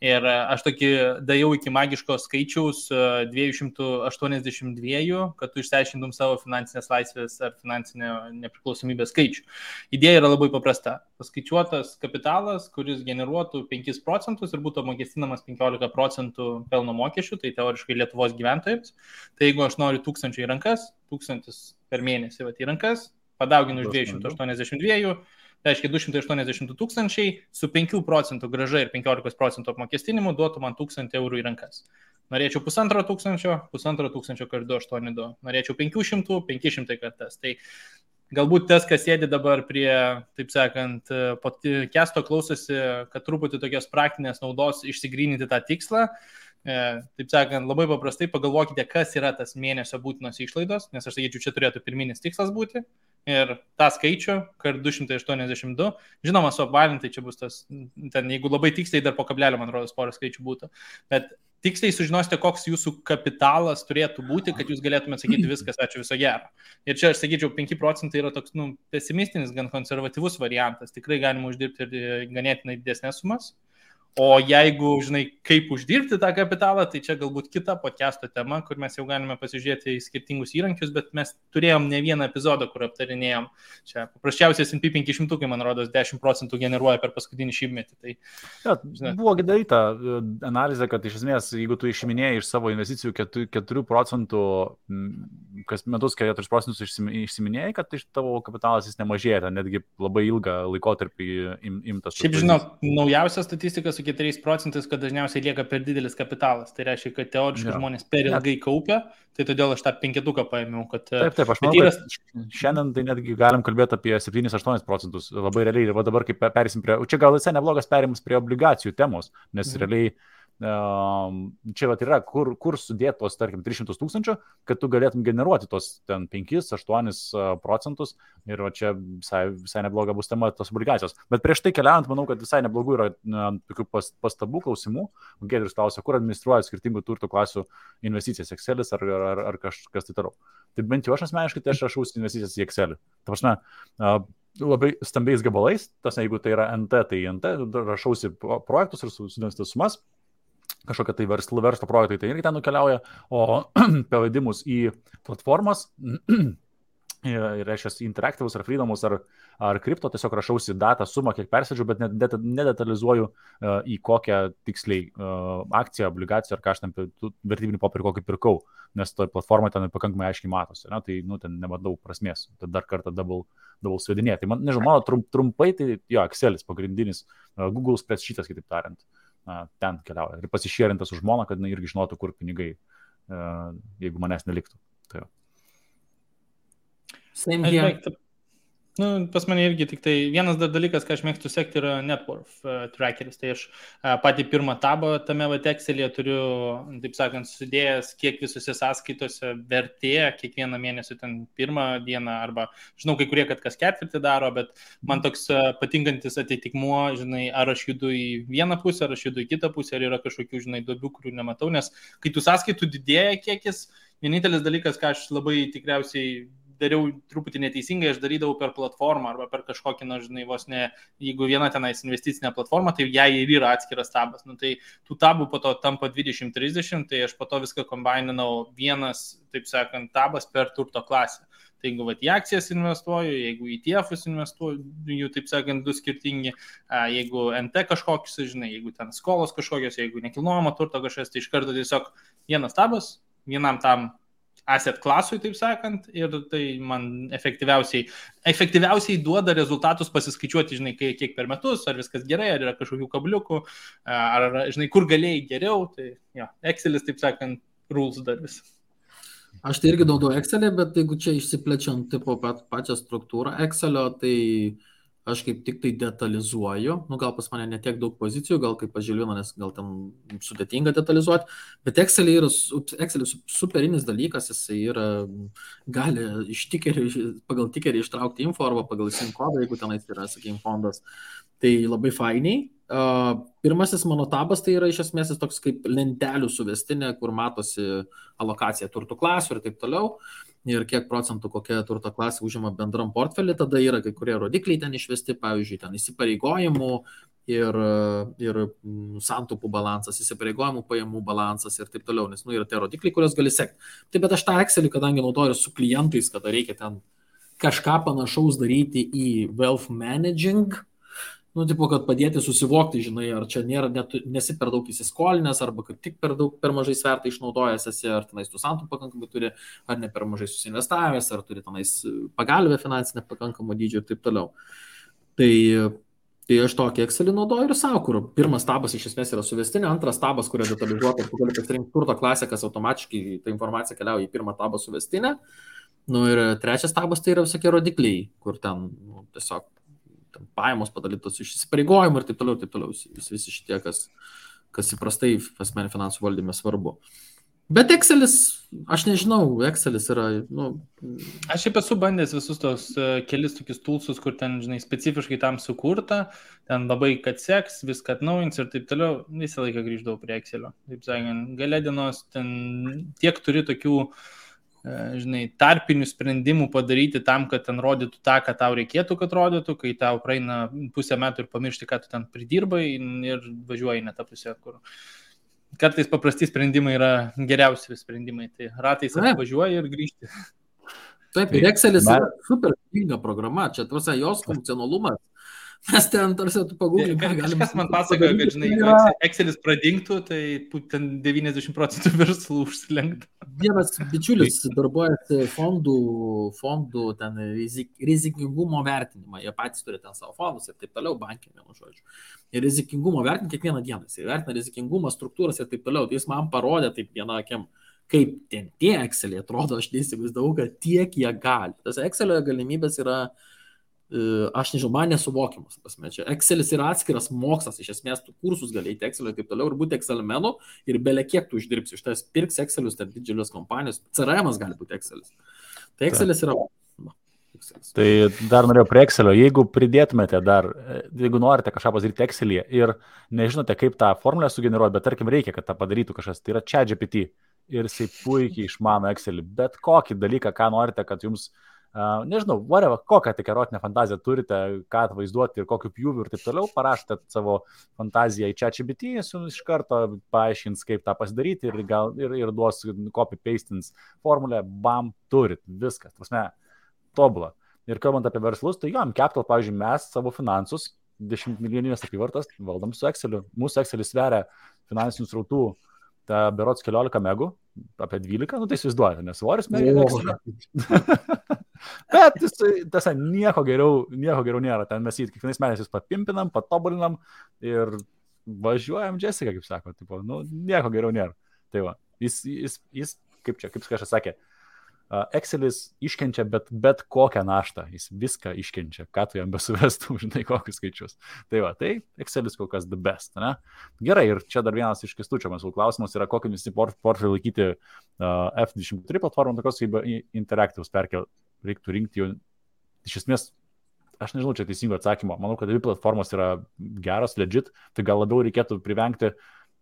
ir aš tokį dėjau iki magiško skaičiaus 282, kad tu išsiaiškintum savo finansinės laisvės ar finansinę nepriklausomybės skaičių. Idėja yra labai paprasta. Paskaičiuotas kapitalas, kuris generuotų 5% ir būtų apmokestinamas 15% pelno mokesčių, tai teoriškai Lietuvos gyventojams. Tai jeigu aš noriu 1000 į rankas, 1000 per mėnesį į rankas, padauginu iš 282, tai reiškia 282 tūkstančiai su 5% grąža ir 15% apmokestinimu duotų man 1000 eurų į rankas. Norėčiau 1500, 1500 kart 282. Norėčiau 500, 500 kartas. Tai galbūt tas, kas sėdi dabar prie, taip sakant, podcast'o klausosi, kad truputį tokios praktinės naudos išsigryninti tą tikslą. Taip sakant, labai paprastai pagalvokite, kas yra tas mėnesio būtinos išlaidos, nes aš sakyčiau, čia turėtų pirminis tikslas būti. Ir tą skaičių, kart 282, žinoma, suapvalintai čia bus tas, ten, jeigu labai tiksliai dar po kablelio, man rodos, porą skaičių būtų. Bet tiksliai sužinosite, koks jūsų kapitalas turėtų būti, kad jūs galėtumėte sakyti viskas, ačiū, viso gero. Ir čia aš sakyčiau, 5% yra toks, pesimistinis, gan konservatyvus variantas. Tikrai galima uždirbti ir ganėtinai didesnės sumas. O jeigu, kaip uždirbti tą kapitalą, tai čia galbūt kita podcast'o tema, kur mes jau galime pasižiūrėti į skirtingus įrankius, bet mes turėjom ne vieną epizodą, kur aptarinėjom. Čia paprasčiausiai S&P 500, man rodos, 10% generuoja per paskutinį šimtmetį. Tai, buvo daryta analizė, kad iš esmės, jeigu tu išiminėjai iš savo investicijų 4%, kas metus 4% išsiminėjai, kad iš tavo kapitalas jis nemažėja, netgi labai ilgą laikotarpį imtas. Šiaip žinau, naujausia statistika su 4%, kad dažniausiai lieka per didelis kapitalas. Tai reiškia, kad teoriškai žmonės per ilgai kaupia, tai todėl aš tą 5 paėmiau. Taip, aš manau, kad šiandien tai netgi galim kalbėti apie 7-8%. Labai realiai, ir dabar kaip perėsim prie, čia gal visai neblogas perėjimas prie obligacijų temos, nes realiai čia yra, kur sudėti tos, tarkim, 300 tūkstančių, kad tu galėtum generuoti tos ten 5-8% ir čia visai nebloga bus tema tos obligacijos. Bet prieš tai keliaujant, manau, kad visai neblogų yra tokių pastabų, klausimų. Giedrius klausia, kur administruoja skirtingų turto klasių investicijas, Excelis ar kas tai toliau. Tai bent jau aš asmeniškai, tai aš rašausi investicijas į Excelį. Ta prasme, labai stambiais gabalais, jeigu tai yra NT, tai NT, rašausi projektus ir sudėstas sumas. Kažkokia tai verslo projektai tai irgi ten nukeliauja, o pavadimus į platformas ir reiškia interaktyvus ar freedomus ar kripto, tiesiog rašausi datą, sumą, kiek persėdžiu, bet nedetalizuoju į kokią tiksliai akciją, obligaciją ar ką aš ten vertybinį popierį kokį pirkau, nes toj platformai ten pakankamai aiškiai matosi, tai ten nematau prasmės, tad dar kartą double svedinėti. Tai nežinau, mano trumpai, tai jo, Excelis pagrindinis, Google spreadsheetas, kitaip tariant. Ten keliauja ir pasišėrintas už žmoną, kad irgi žinotų, kur pinigai, jeigu manęs neliktų. Tai Same here. Pas mane irgi tik tai vienas dar dalykas, ką aš mėgstu sekti, yra net worth trackeris. Tai aš patį pirmą tabą tame Excel'e turiu, taip sakant, sudėjęs, kiek visose sąskaitose vertė kiekvieną mėnesį ten pirmą dieną, arba žinau, kai kurie, kad kas ketvirtį daro, bet man toks patinkantis atitikmuo, ar aš judu į vieną pusę, ar aš judu į kitą pusę, ar yra kažkokių, duobių, kurių nematau, nes kai tų sąskaitų didėja kiekis, vienintelis dalykas, ką aš labai tikriausiai dariau truputį neteisingai, aš darydavau per platformą arba per kažkokį, vos ne, jeigu viena tenais investicinė platforma, tai jai ir yra atskiras tabas. Tai tų tabų po to tampa 20-30, tai aš po to viską kombaininau vienas, taip sakant, tabas per turto klasę. Tai jeigu į akcijas investuoju, jeigu į ETF-us investuoju, jų, taip sakant, du skirtingi, jeigu NT kažkokius, jeigu ten skolos kažkokios, jeigu nekilnojamo turto kažkas, tai iš karto tiesiog vienas tabas, vienam tam asset klasui, taip sakant, ir tai man efektyviausiai duoda rezultatus pasiskaičiuoti, žinai, kiek per metus, ar viskas gerai, ar yra kažkokių kabliukų, ar, žinai, kur galėjai geriau, tai jo, Excelis, taip sakant, rules dar vis. Aš tai irgi naudoju Excelį, bet jeigu čia išsiplečiant tipo pačią struktūrą Excelio, tai aš kaip tik tai detalizuoju, gal pas mane netiek daug pozicijų, gal kaip pažilino, nes gal ten sudėtinga detalizuoti, bet Excelis superinis dalykas, jisai yra, gali pagal tikerį ištraukti info arba pagal SIM kodą, jeigu tenais yra, sakykime, fondas, tai labai fainiai. Pirmasis mano tabas tai yra iš esmės toks kaip lentelių suvestinė, kur matosi alokacija turtų klasių ir taip toliau. Ir kiek procentų kokia turto klasė užima bendram portfelį, tada yra kai kurie rodikliai ten išvesti, pavyzdžiui, ten įsipareigojimų ir santaupų balansas, įsipareigojimų pajamų balansas ir taip toliau, nes yra tie rodikliai, kuriuos gali sekti. Taip, bet aš tą Excelį, kadangi naudoju su klientais, kada reikia ten kažką panašaus daryti į wealth managing, tipo, kad padėti susivokti, žinai, ar čia nesi per daug įsiskolinęs, arba kaip tik per mažai svertą išnaudojęs esi, ar tenais tu santaupų pakankamai turi, ar ne per mažai susinvestavęs, ar turi tenais pagalbę finansinę pakankamą dydžio ir taip toliau. Tai aš tokį Excelį naudoju ir savo, kur pirmas tabas iš esmės yra suvestinė, antras tabas, kurio detalizuota, tu gali pasirinkti turto klasę, kas automatiškai ta informacija keliauja į pirmą tabą suvestinę. Ir trečias tabas tai yra visokie rodikliai, kur ten tiesiog pajamos padalytos iš įsipareigojimų ir taip toliau, visi šitie, kas įprastai asmeninių finansų valdyme svarbu. Bet Excelis, aš nežinau, Excelis yra, Aš šiaip esu bandęs visus tos kelis tokius toolsus, kur ten, žinai, specifiškai tam sukurta, ten labai kad seks, viską atnaujins ir taip toliau, visą laiką grįždavau prie Excelio. Taip sakant, gale dienos ten tiek turi tokių, žinai, tarpinių sprendimų padaryti tam, kad ten rodytų tą, ką tau reikėtų, kad rodytų, kai tau praeina pusę metų ir pamiršti, ką tu ten pridirbai ir važiuoji ne tą pusę, kur kartais paprasti sprendimai yra geriausi sprendimai, tai ratais važiuoji ir grįžti. Taip, ir Excelis yra super pinga programa, čia tarsi jos funkcionalumas. Mes ten tarsi tu pagūglink, ką galime. Kažkas man pasakoja, kad, žinai, jeigu Excelis pradingtų, tai ten 90% verslų užsilenktų. Vienas bičiulis darbuojasi fondų ten rizikingumo vertinimą. Jie patys turi ten savo fondus ir taip toliau, bankai, vienu žodžiu. Ir rizikingumo vertinimą kiekvieną dieną. Jis vertina rizikingumą, struktūras ir taip toliau. Tai jis man parodė taip vieną akim, kaip ten tie Exceliai atrodo, aš neįsivaizdavau, kad tiek jie gali. Tas Excelio galimybės yra, aš nežinau, man nesuvokimas. Čia Excelis yra atskiras mokslas, iš esmės tu kursus gali eiti Excelio ir taip toliau ir būti Excelimenu ir belia kiek tu uždirbsi. Iš tas pirks Excelius, ten didžiulės kompanijos, CRM'as gali būti Excelis. Tai Excelis yra... Excelis. Tai dar norėjau prie Excelio, jeigu pridėtumėte jeigu norite kažką pasidaryti Excel'yje ir nežinote, kaip tą formulę sugeneruoti, bet tarkim reikia, kad tą padarytų kažkas, tai yra ChatGPT ir jisai puikiai išmano Excelį, bet kokį dalyką, ką norite, kad jums nežinau, kokią tik erotinę fantaziją turite, ką atvaizduoti ir kokiu pjūviu ir taip toliau, parašote savo fantaziją į ChatGPT, jis jums iš karto paaiškins, kaip tą pasidaryti ir duos copy-pastins formulę, bam, turit, viskas, prasme, tobulą. Ir kalbant apie verslus, tai jom, Capital, pavyzdžiui, mes savo finansus, 10 milijoninės apyvartas, valdom su Exceliu. Mūsų Excelis sveria finansinių srautų, ta berods 14 megų, apie 12, tai įsivaizduojate, nes svoris megų. Bet tiesa, nieko geriau nėra. Ten mes jį kiekvienais metais papimpinam, patobulinam ir važiuojam Jessica, kaip sako. Tipo, nieko geriau nėra. Tai va, jis kaip kažkas sakė, Excelis iškenčia bet kokią naštą. Jis viską iškenčia, ką tu jam besuvestų, žinai, kokius skaičius. Tai va, tai Excelis kol kas the best, ne? Gerai, ir čia dar vienas iš Kęstučio mūsų klausimas yra, kokį visi portfelį laikyti F23 platformą, tokios kaip Interactives perkel. Reiktų rinkti jau, iš esmės, aš nežinau, čia teisingo atsakymo. Manau, kad dvi platformos yra geros, legit, tai gal labiau reikėtų privengti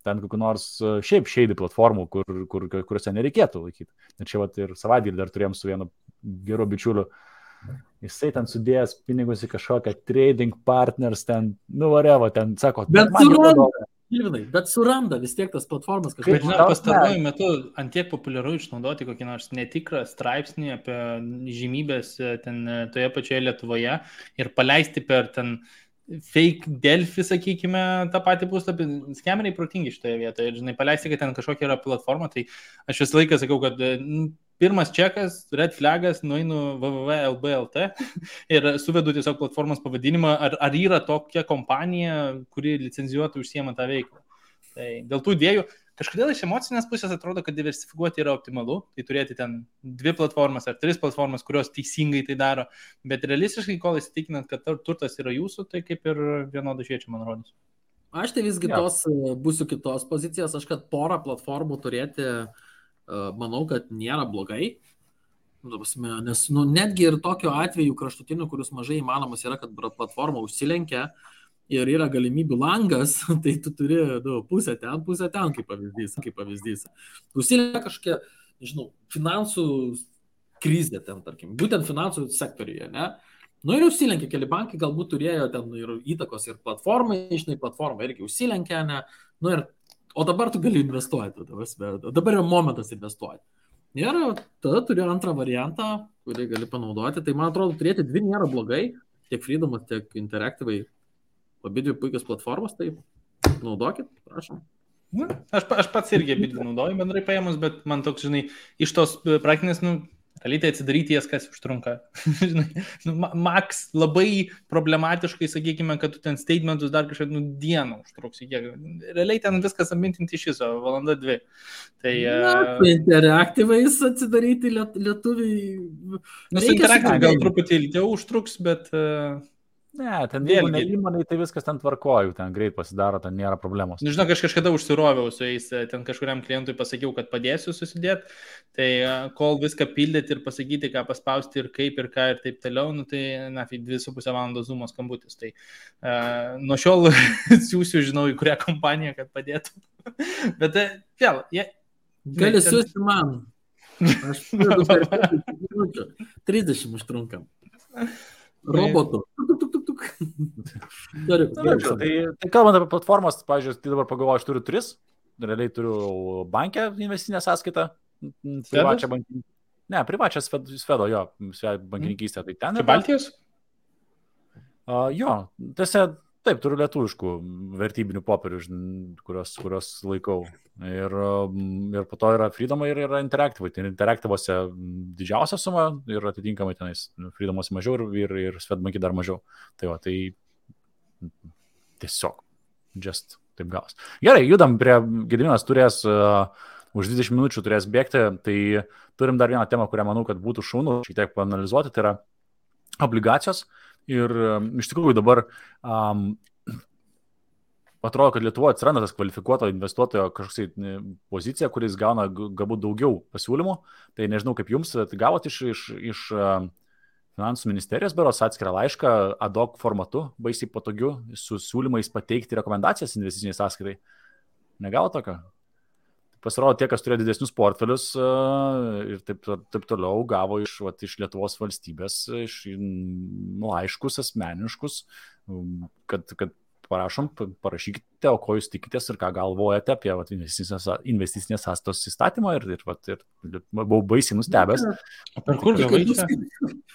ten kokių nors šiaip shady platformų, kuriuose nereikėtų laikyti. Ir čia vat ir savaitgalį dar turėjom su vienu geru bičiuliu. Jisai ten sudėjęs pinigus į kažkokią trading partners, ten, whatever, ten sako, Bet suranda vis tiek tas platformas kažkaip. Bet, žinai, pastaruoju metu antiek populiaru išnaudoti kokį nors netikrą straipsnį apie žymybės ten toje pačioje Lietuvoje ir paleisti per ten fake Delfi, sakykime, tą patį puslapį. Skemeriai protingi šitoje vietoje. Ir, žinai, paleisti, kad ten kažkokia yra platforma, tai aš visą laiką sakau, kad pirmas čekas, red flagas, nueinu www.lb.lt ir suvedu tiesiog platformos pavadinimą, ar yra tokia kompanija, kuri licenzijuotų užsiema tą veiklą. Tai dėl tų idėjų, kažkodėl iš emocinės pusės atrodo, kad diversifikuoti yra optimalu, tai turėti ten 2 platformas ar 3 platformas, kurios teisingai tai daro, bet realistiškai, kol įsitikinant, kad turtas yra jūsų, tai kaip ir vienodai šviečia, man rodos. Aš tai visgi būsiu kitos pozicijos, aš kad porą platformų turėti, manau, kad nėra blogai, nes netgi ir tokio atveju kraštutinių, kurius mažai įmanomas yra, kad platforma užsilenkia ir yra galimybių langas, tai tu turi pusę ten, kaip pavyzdys. Užsilenkia kažkokia, nežinau, finansų krizė ten, tarkim, būtent finansų sektoriuje, ne? Ir užsilenkia, keli bankai galbūt turėjo ten ir įtakos ir platformai, platforma irgi užsilenkia, ne? O dabar tu gali investuoti, dabar yra momentas investuoti. Ir tada turi antrą variantą, kurį gali panaudoti, tai man atrodo, turėti 2 nėra blogai, tiek Freedomas, tiek Interactive, abidvi puikios platformos, tai naudokit, prašom. Aš pats irgi abidvi naudoju bendrai paėmus, bet man toks, žinai, iš tos praktinės, realiai tai atsidaryti jas, kas užtrunka. Max labai problematiškai, sakykime, kad tu ten statementus dar kažkaip dieną užtruks. Realiai ten viskas amintinti iš viso, 1-2 valandą. Tai Interactive'ais atsidaryti lietuviai. Su Interactive gal truputį ilgiau užtruks, bet... Ne, ten vėlgi įmonai, tai viskas ten tvarkoju, ten greit pasidaro, ten nėra problemos. Žinau, aš kažkada užsiroviau su jais, ten kažkuriam klientui pasakiau, kad padėsiu susidėti, tai kol viską pildyti ir pasakyti, ką paspausti ir kaip ir ką ir taip toliau, tai 2,5 valandos Zoom'o skambutis. Tai nuo šiol siūsiu, žinau, į kurią kompaniją, kad padėtų. Bet vėl, gali siūsti man. Aš 30 užtrunkam. Robotų. Tai kalbant apie platformas, pavyzdžiui, tai dabar pagalvoju, aš turiu 3, realiai turiu bankę investicinę sąskaitą, privačią Svedo, jo, bankininkystę, tai ten. Čia Baltijos? Jo, tiesa, taip, turiu lietuviškų vertybinių popierių, kurios laikau. Ir po to yra Freedomai ir yra Interactive. Tai Interactive'ose didžiausia suma ir atitinkamai tenais Freedom'ose mažiau ir Swedbank'e dar mažiau. Tai tiesiog just taip gaus. Gerai, judam prie Gediminas turės už 20 minučių turės bėgti. Tai turim dar vieną temą, kurią manau, kad būtų šaunu šiek tiek paanalizuoti. Tai yra obligacijos. Ir iš tikrųjų dabar atrodo, kad Lietuvoje atsiranda tas kvalifikuoto investuotojo kažkoks pozicija, kuris gauna galbūt daugiau pasiūlymų. Tai nežinau, kaip jums, gavot iš finansų ministerijos beros atskirą laišką ad hoc formatu, baisiai patogiu, su siūlymais pateikti rekomendacijas investiciniai sąskaitai. Negavo tokio? Pasirodo, tie, kas turėjo didesnius portfelius ir taip toliau, gavo iš Lietuvos valstybės laiškus asmeniškus, kad parašykite, o ko jūs tikitės ir ką galvojate apie investicinės sąskaitos įstatymą ir buvau baisiai nustebęs. Per kur gavai čia?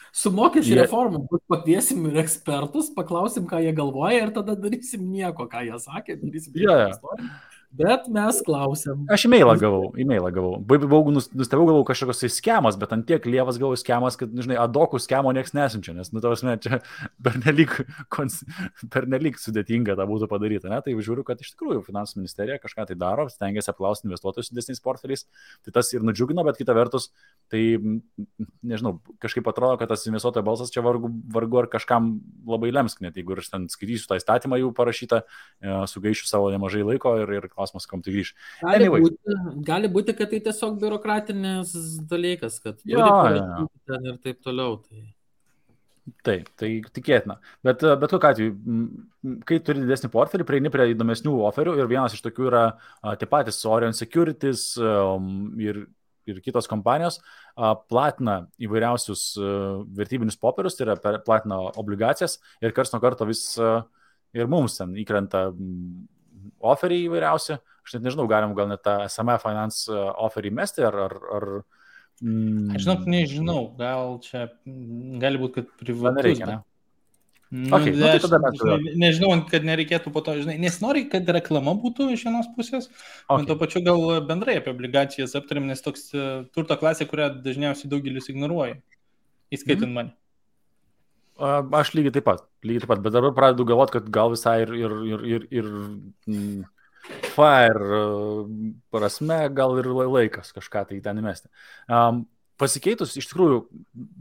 Su mokesčių reformom pakviesim ir ekspertus, paklausim, ką jie galvoja ir tada darysim nieko, ką jie sakė, darysim istoriją. Bet mes klausiam. Aš e-mailą gavau. Buvau nustebau, galvau kažkokios tai skemas, bet ant tiek lievas gavau skemas, kad, žinai, adokų skemo nieks nesinčia, nes, čia pernelyg sudėtinga tą būtų padaryti, ne? Tai žiūriu, kad iš tikrųjų finansų ministerija kažką tai daro, stengiasi apklausti investuotojus su didesniais portfeliais, tai tas ir nudžiugino, bet kita vertus, tai, nežinau, kažkaip atrodo, kad tas investuotojo balsas čia vargu ar kažkam labai lems, net jeigu aš ten skaitysiu tą įstatymą jau parašytą, sugaišiu savo nemažai laiko ir klausimas, kam tai grįž. Gali būti, kad tai tiesiog biurokratinis dalykas, kad ten ir taip toliau. Taip, tai tikėtina. Bet kokiu atveju, kai turi didesnį portfelį, prieini prie įdomesnių oferių ir vienas iš tokių yra tie patys Orion Securities ir kitos kompanijos platina įvairiausius vertybinius popierius, tai yra platina obligacijas ir karts nuo karto vis ir mums ten įkrenta oferiai įvairiausi. Aš net nežinau, galim gal net tą SME Finance oferį mesti ar Aš nežinau, gal čia gali būti, kad privatus. Okay, tai tada nežinau, kad nereikėtų po to, žinai, nesinori, kad reklama būtų iš vienos pusės, bet to pačiu gal bendrai apie obligacijas aptarėm, nes toks turto klasė, kurią dažniausiai daugelis ignoruoja, įskaitant mane. Aš lygiai taip pat, bet dabar pradedu galvoti, kad gal visai ir FIRE prasme, gal ir laikas kažką tai ten įmesti. Pasikeitus, iš tikrųjų,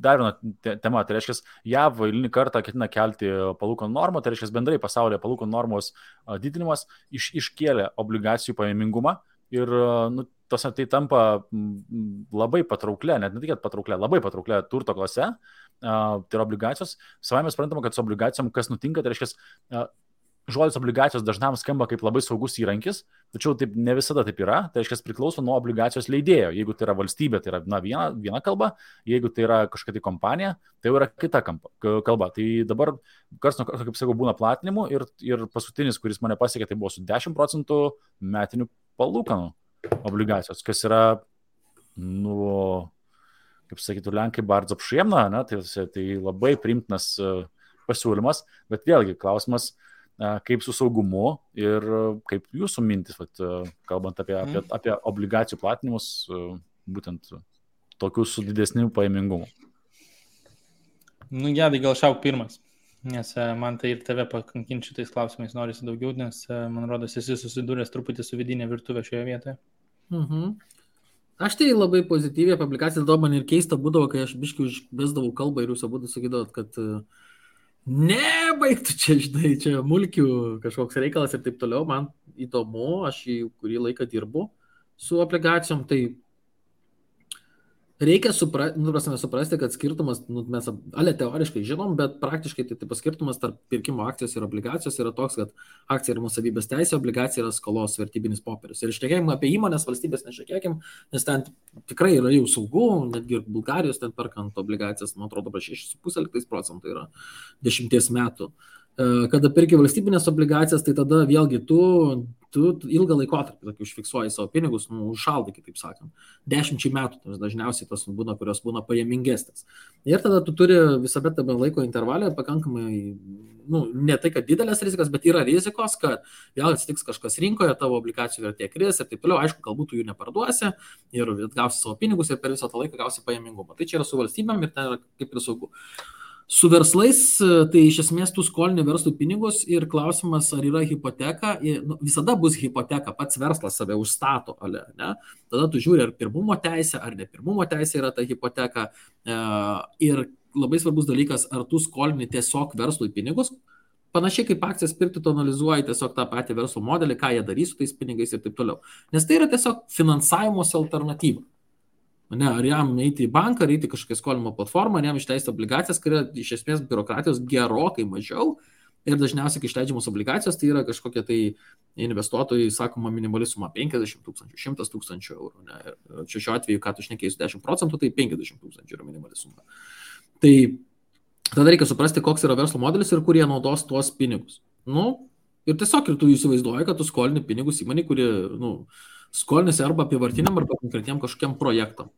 dar viena tema, tai reiškia, JAV eilinį kartą ketina kelti palūkanų normą, tai reiškia, bendrai pasaulyje palūkanų normos didinimas iškėlė obligacijų pajamingumą ir tai tampa labai patrauklė, net ne tik patrauklė, labai patrauklė turto klase, tai yra obligacijos. Savai mes suprantame, kad su obligacijom kas nutinka, tai reiškia, žodis obligacijos dažnam skamba kaip labai saugus įrankis, tačiau taip ne visada taip yra, tai reiškia priklauso nuo obligacijos leidėjo. Jeigu tai yra valstybė, tai yra viena kalba, jeigu tai yra kažkokia tai kompanija, tai jau yra kita kalba. Tai dabar, kaip sakau, būna platinimų ir paskutinis, kuris mane pasiekė, tai buvo su 10% metinių palūkanų obligacijos, kas yra, kaip sakytų, Lenkai bardzo apšiemna, tai labai priimtinas pasiūlymas, bet vėlgi klausimas, kaip su saugumu ir kaip jūsų mintis, kalbant apie obligacijų platinimus, būtent tokius su didesniu pajamingumu. Gedai, gal šauk pirmas, nes man tai ir tave pakankinti šitais klausimais norisi daugiau, nes man rodos esi susidūręs truputį su vidinė virtuvė šioje vietoje. Aš tai labai pozityviai apie obligacijas, man ir keista būdavo, kai aš biškai užbesdavau kalbą ir jūs abudu sakydavot, kad nebaigtų čia, žinai, čia mulkių kažkoks reikalas ir taip toliau. Man įdomu, aš kurį laiką dirbu su obligacijom, tai reikia suprasti, kad skirtumas, mes teoriškai žinom, bet praktiškai tai skirtumas tarp pirkimo akcijos ir obligacijos yra toks, kad akcija yra nuosavybės teisė, obligacija yra skolos vertybinis popierius. Ir šnekėkim apie įmonės, valstybės nešnekėkim, nes ten tikrai yra jau saugu, netgi ir Bulgarijos ten perkant obligacijas, man atrodo, 6,5% yra 10 metų. Kada perki valstybinės obligacijas, tai tada vėlgi tu ilgą laikotarpį užfiksuoji savo pinigus, užšaldai, kitaip sakant. 10 metų dažniausiai tos būna, kurios būna pajamingesnės. Ir tada tu turi visada tame laiko intervalė pakankamai, ne tai, kad didelės rizikas, bet yra rizikos, kad vėl atsitiks kažkas rinkoje, tavo obligacijų vertė kris ir taip toliau. Aišku, galbūt tu jų neparduosi ir gausi savo pinigus ir per visą tą laiką gausi pajamingumą. Tai čia yra su valstybėm ir ten yra kaip ir saugu. Su verslais, tai iš esmės tu skolini verslui pinigus ir klausimas, ar yra hipoteka, visada bus hipoteka, pats verslas save užstato, ne? Tada tu žiūri, ar pirmumo teisė, ar ne pirmumo teisė yra ta hipoteka ir labai svarbus dalykas, ar tu skolini tiesiog verslui pinigus, panašiai kaip akcijas pirkti, tu analizuoji tiesiog tą patį verslo modelį, ką jie darys su tais pinigais ir taip toliau, nes tai yra tiesiog finansavimosi alternatyva. Ne, ar jam eiti į banką, ar eiti kažkokią skolinimo platformą, ar jam išleisti obligacijas, kai yra iš esmės biurokratijos gerokai mažiau ir dažniausiai, kai išleidžiamos obligacijos, tai yra kažkokie tai investuotojai, sakoma, minimali suma 50 000, 100 000 eurų. Ne? Ir čia šiuo atveju, ką tu šnekėjai su 10%, tai 50 000 yra minimali suma. Tai tada reikia suprasti, koks yra verslo modelis ir kur jie naudos tuos pinigus. Ir tiesiog ir tu įsivaizduoji, kad tu skolini pinigus įmonei, kuri, skolinasi arba apivartiniam, arba konkretiem kažkokiam projektam.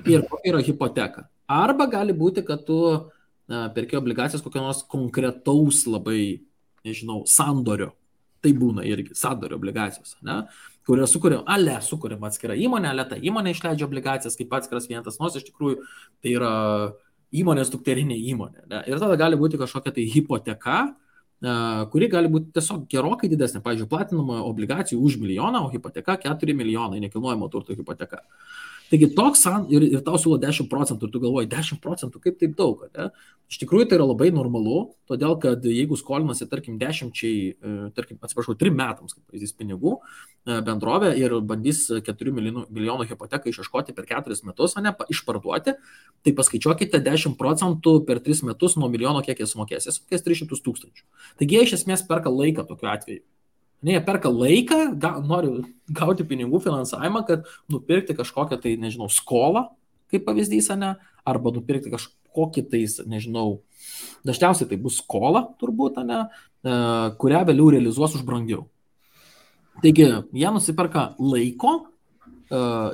Ir kokia yra hipoteka. Arba gali būti, kad tu perki obligacijas kokio nors konkretaus labai, sandorio. Tai būna irgi sandorio obligacijos, ne? Kurio sukuriama atskira įmonė, ta įmonė išleidžia obligacijas kaip atskiras vienetas, nors iš tikrųjų tai yra įmonės dukterinė įmonė. Ne? Ir tada gali būti kažkokia tai hipoteka, kuri gali būti tiesiog gerokai didesnė. Pavyzdžiui, platinama obligacijų už 1 milijoną, o hipoteka 4 milijonai, nekilnojamo turto hipoteka. Taigi toks ir tau siūlo 10%, ir tu galvoji, 10%, kaip taip daug, ne? Iš tikrųjų tai yra labai normalu, todėl kad jeigu skolinasi, tarkim, 3 metams, kaip pavyzdys, pinigų bendrovė ir bandys 4 milijonų hipoteką išieškoti per 4 metus, ne, išparduoti, tai paskaičiuokite 10% per 3 metus nuo milijono, kiek jie sumokės. Jie sumokės 300 000. Taigi jie iš esmės perka laiką tokiu atveju. Ne, jie perka laiką, nori gauti pinigų finansavimą, kad nupirkti kažkokią tai, skolą, kaip pavyzdys, ne, arba nupirkti kažkokį tai, dažniausiai tai bus skola, turbūt, ne, kurią vėliau realizuos už brangiau. Taigi, jie nusiperka laiko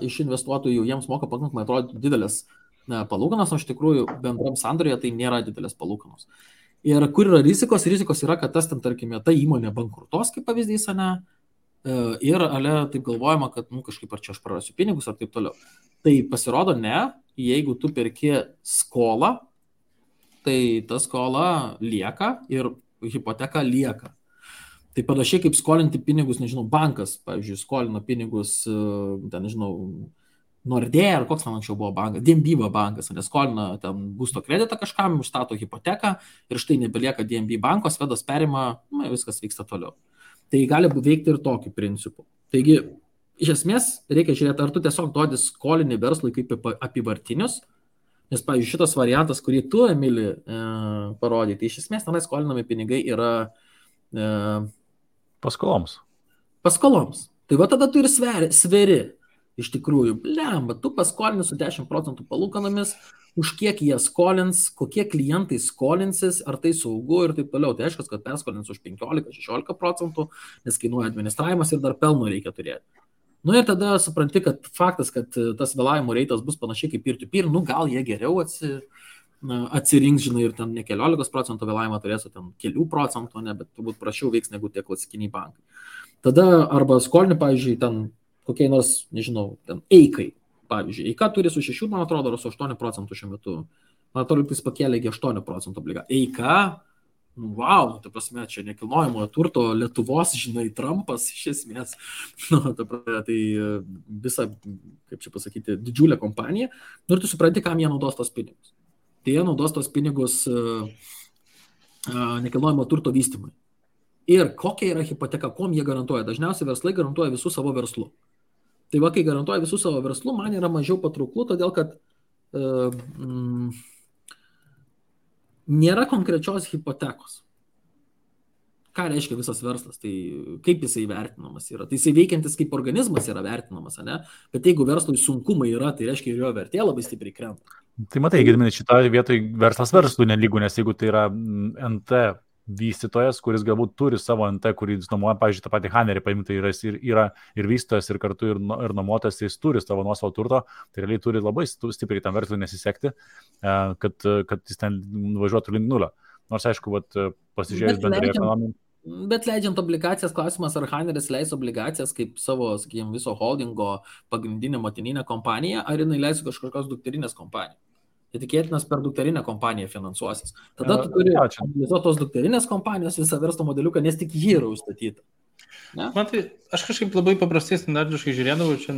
iš investuotojų, jiems moka pakankamai atrodo didelės palūkanos, o iš tikrųjų bendram sandorėje tai nėra didelės palūkanos. Ir kur yra rizikos? Rizikos yra, kad tas ten, tarkime, ta įmonė bankrutos, kaip pavyzdys, ne? Ir taip galvojama, kad kažkaip ar čia aš prarasiu pinigus ar taip toliau. Tai pasirodo ne, jeigu tu perki skolą, tai ta skola lieka ir hipoteka lieka. Tai panašiai kaip skolinti pinigus, nežinau, bankas, pavyzdžiui, skolino pinigus, ten, nežinau, Nordea ar koks man anksčiau buvo bankas, DNB bankas, neskolina ten būsto kreditą kažkam, užstato hipoteką ir štai nebelieka DNB banko, Svedas perima, viskas vyksta toliau. Tai gali veikti ir tokiu principu. Taigi, iš esmės, reikia žiūrėti, ar tu tiesiog duodi skolinį verslui kaip apivartinius, nes, pavyzdžiui, šitas variantas, kurį tu, Emili, parodai, tai iš esmės tenai skolinami pinigai yra paskoloms. Paskoloms. Tai va tada tu ir sveri. Iš tikrųjų, blemba, tu paskolini su 10% palūkanomis, už kiek jie skolins, kokie klientai skolinsis, ar tai saugu ir taip toliau. Tai aišku, kad perskolins už 15-16%, nes kainuoja administravimas ir dar pelno reikia turėti. Ir tada supranti, kad faktas, kad tas vėlavimo reitas bus panašiai kaip peer-to-peer, gal jie geriau atsirinks, žinai, ir ten ne 14% vėlavimą turės, o ten kelių procentų, bet turbūt prašiau veiks negu tie klasikiniai bankai. Tada arba skolini, pavyzdžiui, ten kokiai nors, nežinau, ten Eikai, pavyzdžiui. Eika turi su 6, man atrodo, ar su 8% šiuo metu. Man atrodo, jis pakėlė iki 8% obligacijų. Eika, wow, ta prasme, čia nekilnojamojo turto Lietuvos, žinai, Trumpas iš esmės. Tai visa, kaip čia pasakyti, didžiulė kompanija. Ir tu supranti, kam jie naudos tos pinigus. Tai jie naudos tos pinigus nekilnojamo turto vystymui. Ir kokia yra hipoteka, kom jie garantuoja. Dažniausiai verslai garantuoja visų savo verslų. Tai va, kai garantuoja visų savo verslų, man yra mažiau patrauklų, todėl kad nėra konkrečios hipotekos. Ką reiškia visas verslas? Tai kaip jisai vertinamas yra? Tai jisai veikiantis kaip organizmas yra vertinamas, ne? Bet jeigu verslui sunkumai yra, tai reiškia ir jo vertė labai stipriai krenta. Tai matai, Gediminai, šitoje vietoje verslas verslui nelygų, nes jeigu tai yra NT vystytojas, kuris galbūt turi savo NT, kurį nuomoja, pavyzdžiui, tą patį Hanerį paimti, tai yra ir vystytojas, ir kartu ir nuomotas, jis turi savo nuosavo turto, tai realiai turi labai stipriai tam verslui nesisekti, kad jis ten nuvažiuotų link nulio. Nors, aišku, pasižiūrėjus bendrai ekonomiją. Bet leidžiant obligacijas, klausimas, ar Haneris leis obligacijas kaip savo, sakykime, viso holdingo pagrindinę motininę kompaniją, ar jinai leis kažkokios dukterinės kompanijos. Tai tikėtinas per dukterinę kompaniją finansuosis. Tada tu turi analizuoti tos dukterinės kompanijos visą verslo modeliuką, nes tik jį yra užstatyta. Ne? Man tai, aš kažkaip labai paprastai standartiškai žiūrėdavau, čia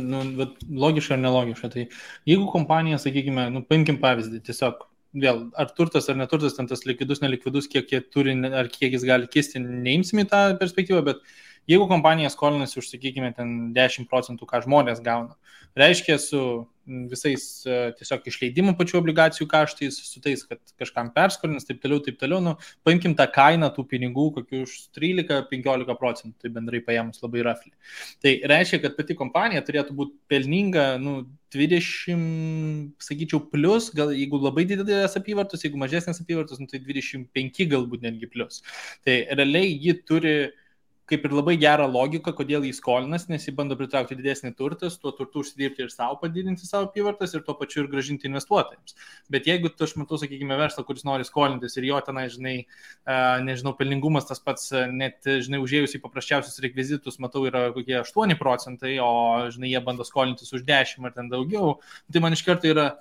logiška ar nelogiška. Tai jeigu kompanija, sakykime, paimkim pavyzdį, tiesiog vėl, ar turtas ar neturtas, ten tas likvidus, nelikvidus, kiek jie turi, ar kiek jis gali kisti, neimsim į tą perspektyvą, bet jeigu kompanija skolinasi už, sakykime, ten 10%, ką žmonės gauna, reiškia su visais tiesiog išleidimų pačių obligacijų kaštais, su tais, kad kažkam perskolins, taip toliau, paimkim tą kainą tų pinigų kokių už 13-15%, tai bendrai paėmus labai rafliai. Tai reiškia, kad pati kompanija turėtų būti pelninga, 20, sakyčiau, plus, gal jeigu labai didelės apyvartos, jeigu mažesnės apyvartos, tai 25 galbūt netgi plus. Tai realiai ji turi kaip ir labai gerą logiką, kodėl jis skolinas, nes jis bando pritraukti didesnį turtą, tuo turtu užsidirbti ir savo padidinti savo apyvartas ir tuo pačiu ir grąžinti investuotojams. Bet jeigu aš matau, sakykime, verslą, kuris nori skolintis ir jo tenai, žinai, nežinau, pelningumas tas pats, net, žinai, užėjus į paprasčiausius rekvizitus, matau, yra kokie 8%, o, žinai, jie bando skolintis už 10 ar ten daugiau, tai man iš karto yra,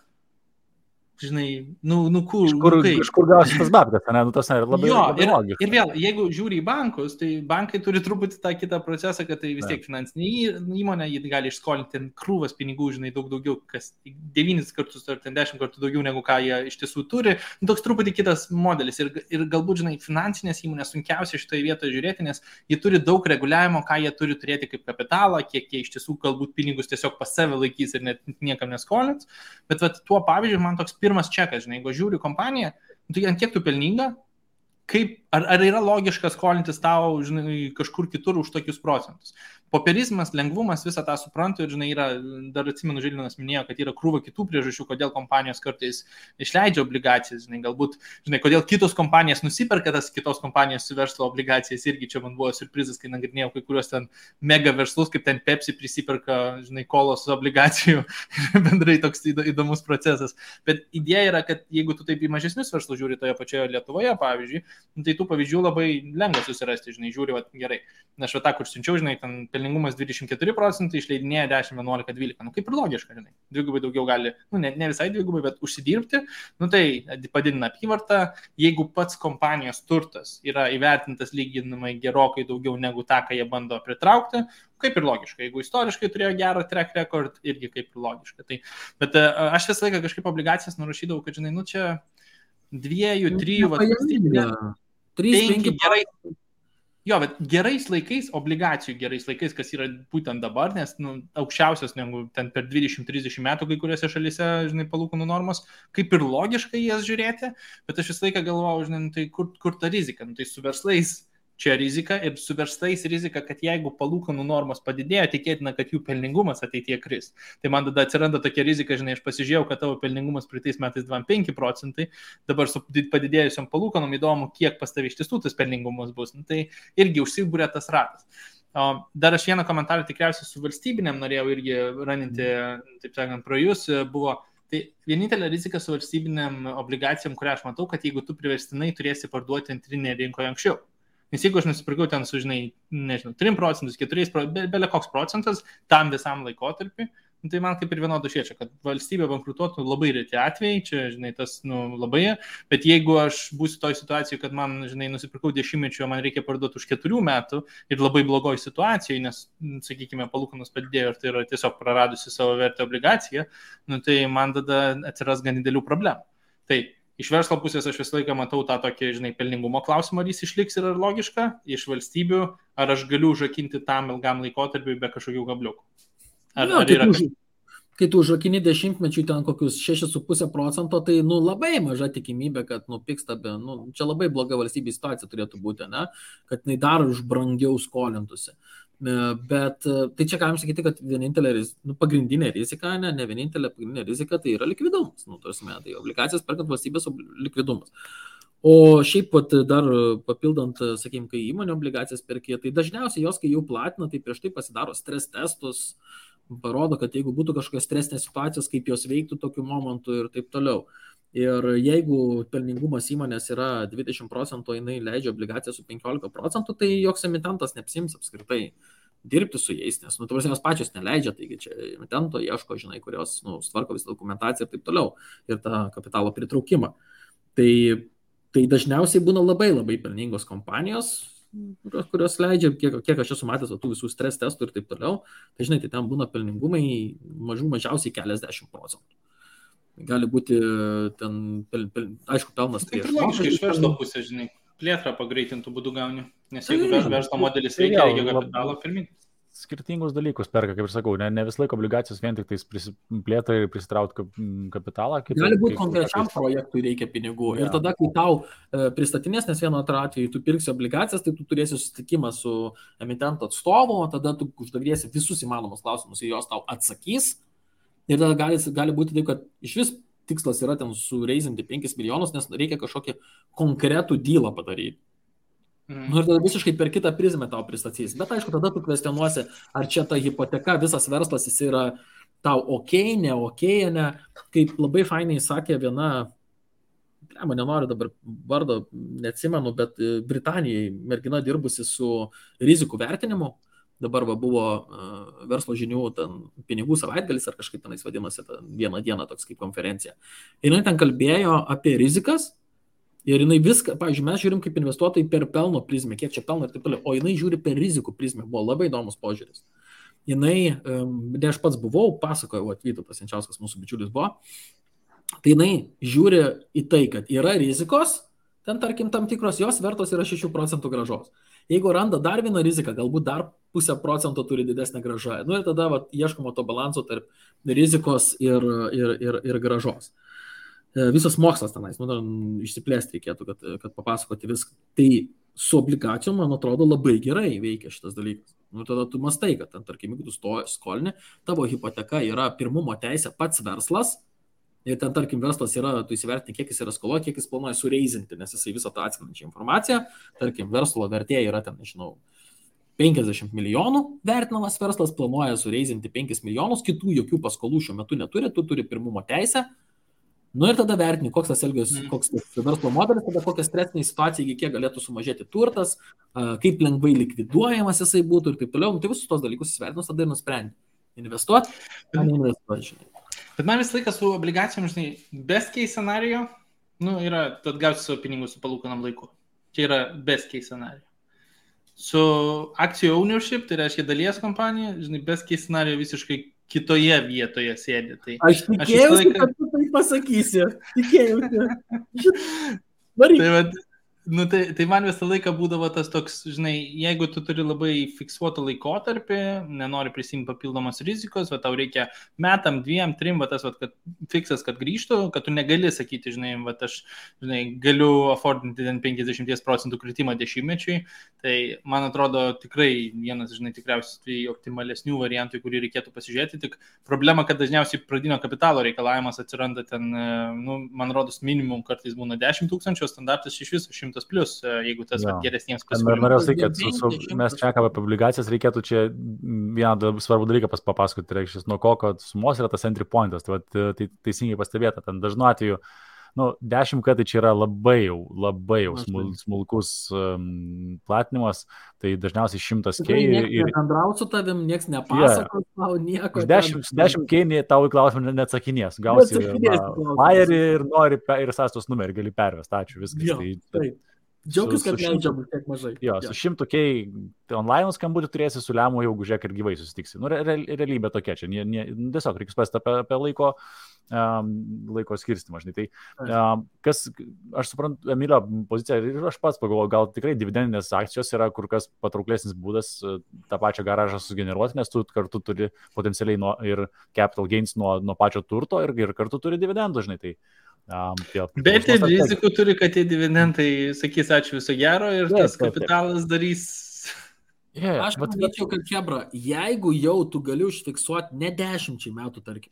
žinai, Kažkur gausi tas babkas, ne? Tas yra labai logiška. Ir vėl, jeigu žiūri į bankus, tai bankai turi truputį tą kitą procesą, kad tai vis tiek finansinė įmonė, jie gali išskolinti krūvas pinigų, žinai, daug daugiau, kas 9 kartus ar 10 kartų daugiau negu ką jie iš tiesų turi. Toks truputį kitas modelis. Ir galbūt, žinai, finansinės įmonės sunkiausia šitoje vietoje žiūrėti, nes jie turi daug reguliavimo, ką jie turi turėti kaip kapitalą, kiek jie iš tiesų galbūt pinigus tiesiog pas save laikys ir net niekam neskolins. Bet tuo pavyzdžiui, man toks pirmas čekas, žinai, jeigu žiūri kompaniją, tai ant kiek tu pelninga, ar yra logiška skolintis tau, žinai, kažkur kitur už tokius procentus. popierizmas, lengvumas, visą tą suprantu ir, žinai, yra, dar atsimenu, Žilvinas minėjo, kad yra krūva kitų priežasčių, kodėl kompanijos kartais išleidžia obligacijas, žinai, galbūt, žinai, kodėl kitos kompanijos nusiperka tas kitos kompanijos verslo obligacijas, irgi čia man buvo surprizas, kai nagrinėjau kai kurios ten mega verslus, kaip ten Pepsi prisiperka, žinai, kolos obligacijų, bendrai toks įdomus procesas. Bet idėja yra, kad jeigu tu taip į mažesnius verslus žiūri toje pačioje Lietuvoje, pavyzdžiui, tai tų pavyzdžių labai lengva susirasti, žinai, žiūri, va, gerai. Na, aš va tą, kur siunčiau, žinai, ten pelningumas 24%, išleidinėja 10, 11, 12. Nu, kaip ir logiška, žinai. Dvigubai daugiau gali, nu, ne visai dvigubai, bet užsidirbti. Nu, tai padidina apyvartą. Jeigu pats kompanijos turtas yra įvertintas lyginamai gerokai daugiau negu tą, ką jie bando pritraukti, kaip ir logiška. Jeigu istoriškai turėjo gerą track record, irgi kaip ir logiška. Tai, bet aš visą laiką kažkaip obligacijas nurašydavau, kad, žinai, nu, čia 2, 3, 5 gerai. Jo, bet gerais laikais, obligacijų gerais laikais, kas yra būtent dabar, nes nu, aukščiausias negu ten per 20-30 metų kai kuriuose šalyse, žinai, palūkanų normos, kaip ir logiškai jas žiūrėti, bet aš visą laiką galvojau, žinai, tai kur ta rizika, nu, tai su verslais čia rizika ir su verslais rizika, kad jeigu palūkanų normos padidėjo, tikėtina, kad jų pelningumas ateityje kris. Tai man tada atsiranda tokia rizika, žinai, aš pasižiūrėjau, kad tavo pelningumas praeitais metais 25%, dabar su padidėjusiam palūkanom įdomu, kiek pas tavai iš tiesų tas pelningumas bus. Nu, tai irgi užsibūrė tas ratas. Dar aš vieną komentarą tikriausiai su valstybinėm norėjau irgi raninti, taip sakant, pro jūs, buvo. Tai vienintelė rizika su valstybinėm obligacijom, kurią aš matau, kad jeigu tu priverstinai turėsi parduoti antrinėje rinkoje anksčiau. Nes jeigu aš nusipirkau ten su, žinai, nežinau, 3%, 4%, belia koks procentas tam visam laikotarpiu, tai man kaip ir vienodų šiečia, kad valstybė bankrutuotų labai reti atvejai, čia, žinai, tas, nu, labai, bet jeigu aš būsiu toj situacijoje, kad man, žinai, nusipirkau 10-mečio, man reikia parduoti už 4 metų ir labai blogoj situacijoje, nes, sakykime, palūkanos padidėjo ir tai yra tiesiog praradusi savo vertę obligaciją, nu, tai man tada atsiras gan didelių problemų. Tai iš verslo pusės aš visą laiką matau tą tokį, žinai, pelningumo klausimą, ar jis išliks ir ar logiška, iš valstybių, ar aš galiu užrakinti tam ilgam laikotarpiui be kažkokių gabliukų. Ar yra... Kai tu užrakini 10-mečiui ten kokius 6,5%, tai, nu, labai maža tikimybė, kad nupiksta, nu, čia labai bloga valstybės situacija turėtų būti, ne? Kad jinai dar už brangiau skolintųsi. Bet tai čia galim sakyti, kad vienintelė pagrindinė rizika, ne vienintelė pagrindinė rizika, tai yra likvidumas. Nu, tai obligacijas perkant valstybės likvidumas. O šiaip pat dar papildant, sakykime, kai įmonė obligacijas perkė, tai dažniausiai jos, kai jau platina, tai prieš tai pasidaro stres testus, parodo, kad jeigu būtų kažkokios stresinės situacijos, kaip jos veiktų tokiu momentu ir taip toliau. Ir jeigu pelningumas įmonės yra 20%, jinai leidžia obligaciją su 15%, tai joks emitentas neapsiims apskritai dirbti su jais, nes, nu, tavars jos pačios neleidžia, taigi čia emitento ieško, žinai, kurios, nu, tvarko visą dokumentaciją ir taip toliau, ir tą kapitalo pritraukimą. Tai dažniausiai būna labai labai pelningos kompanijos, kurios leidžia, kiek aš esu matęs tų visų stres testų ir taip toliau, tai, žinai, tai ten būna pelningumai mažiausiai keliasdešimt procentų. Gali būti ten, aišku, pelnas prieš. Tai logiškai iš verslo pusės, žinai, plėtrą pagreitintų būdų gauni, nes jeigu verslo modelis reikia kapitalo pirminti. Skirtingus dalykus perka, kaip ir sakau, ne vis laiko obligacijos vien tik plėtrai ir prisitraukti kapitalą. Gali būti konkrečiam projektui reikia pinigų. Ir tada, kai tau pristatinės, nes vienu atveju tu pirksi obligacijas, tai tu turėsi susitikimą su emitento atstovu, tada tu uždavinėsi visus įmanomus klausimus ir jos tau atsakys. Ir tada gali būti taip, kad iš vis tikslas yra ten sureizinti 5 milijonus, nes reikia kažkokį konkretų dylą padaryti. Nu, ir tada visiškai per kitą prizmę tau pristatys. Bet aišku, tada tu kvestionuosi, ar čia ta hipoteka, visas verslas, jis yra tau ne, ne. Kaip labai fainai sakė viena, nenoriu dabar vardo, neatsimenu, bet Britanijai mergina dirbusi su rizikų vertinimu. Dabar buvo verslo žinių ten, pinigų savaitgalis ar kažkaip tenais vadinasi, vieną dieną toks kaip konferencija. Ir jinai ten kalbėjo apie rizikas ir jinai viską, pavyzdžiui, mes žiūrim kaip investuotojai per pelno prizmę, kiek čia pelno ir taip toliau, o jinai žiūri per rizikų prizmę, buvo labai įdomus požiūris. Jinai, ne aš pats buvau, pasakojau, Vytautas Jančiauskas, mūsų bičiulis buvo, tai jinai žiūri į tai, kad yra rizikos, ten tarkim tam tikros, jos vertos yra 6% grąžos. Jeigu randa dar vieną riziką, galbūt dar 0,5% turi didesnę grąžą. Nu ir tada ieškoma to balanso tarp rizikos ir grąžos. Visas mokslas tenais, išsiplėsti reikėtų, kad papasakoti viską. Tai su obligacijom, man atrodo, labai gerai veikia šitas dalykas. Nu, tada tu mastai, kad, tarkim, jeigu tu skolini, tavo hipoteka yra pirmumo teisė pats verslas. Ir ten, tarkim, verslas yra, tu įsivertini, kiek jis yra skolo, kiek jis planuoja sureizinti, nes jisai visą tą atskrinančią informaciją. Tarkim, verslo vertė yra ten, nežinau, 50 milijonų vertinamas verslas, planuoja sureizinti 5 milijonus, kitų jokių paskolų šiuo metu neturi, tu turi pirmumo teisę. Nu ir tada vertini, koks tas verslo modelis, tada kokia stresinė situacija, kiek galėtų sumažėti turtas, kaip lengvai likviduojamas jisai būtų ir taip toliau. Nu, tai visus tos dalykus įsivertinus, tada ir nusprendi. Investuoti, ar neinvestuoti, žinai. Bet man visą laiką su obligacijom, žinai, best case scenario, nu, yra, tu atgausi savo pinigus su palūkanam laiku. Čia yra best case scenario. Su akcijų ownership, tai reiškia dalies kompanija, žinai, best case scenario visiškai kitoje vietoje sėdi. Tai aš tikėjausi, kad tu tai pasakysi. Tikėjausi. Varyk. Tai man visą laiką būdavo tas toks, žinai, jeigu tu turi labai fiksuotą laikotarpį, nenori prisimti papildomos rizikos, va tau reikia metam, 2, 3, va tas, va, kad fiksas, kad grįžtų, kad tu negali sakyti, žinai, va aš, žinai, galiu affordinti 50% kritimą 10-mečiui, tai man atrodo tikrai vienas, žinai, tikriausiai optimalesnių variantų, kurį reikėtų pasižiūrėti, tik problema, kad dažniausiai pradinio kapitalo reikalavimas atsiranda ten, nu, man rodos, minimum kartais būna 10 000, standartas iš viso 100 plus, jeigu tas geresniems pasiūlymams. Norėjau sakyti, kad mes šnekame apie obligacijas, reikėtų čia vieną svarbų dalyką papasakoti, tai reikštis, nuo ko sumos yra tas entry pointas, tai teisingai pastebėta, ten dažnu atveju, nu, 10K tai čia yra labai jau smulkus platinimas, tai dažniausiai 100K. Ir bendrauti su tavim, nieks nepasakos, tau nieko. 10K tau į klausimą neatsakinės, gausi flyerį ir nori ir sąstos numerį gali pervesti, ačiū, viskas. Taip. Džiaugis, kad leidžiam tiek mažai. Jo, su 100K online skambutį turėsi, su lemu jau žiūrėk ir gyvai susitiksi. Nu, realybė tokia čia, tiesiog reikia spasti apie laiko skirstimą. Tai, aš suprantu, Emilio poziciją ir aš pats pagalvoju, gal tikrai dividendinės akcijos yra kur kas patrauklesnis būdas tą pačią garažą sugeneruoti, nes tu kartu turi potencialiai ir capital gains nuo pačio turto ir kartu turi dividendų, žinai. Tai, bet ir rizikų turi, kad tie dividendai sakys ačiū viso gero ir tas kapitalas darys. Aš manyčiau, kad Hebra, jeigu jau tu gali užfiksuoti ne 10 metų, tarkim,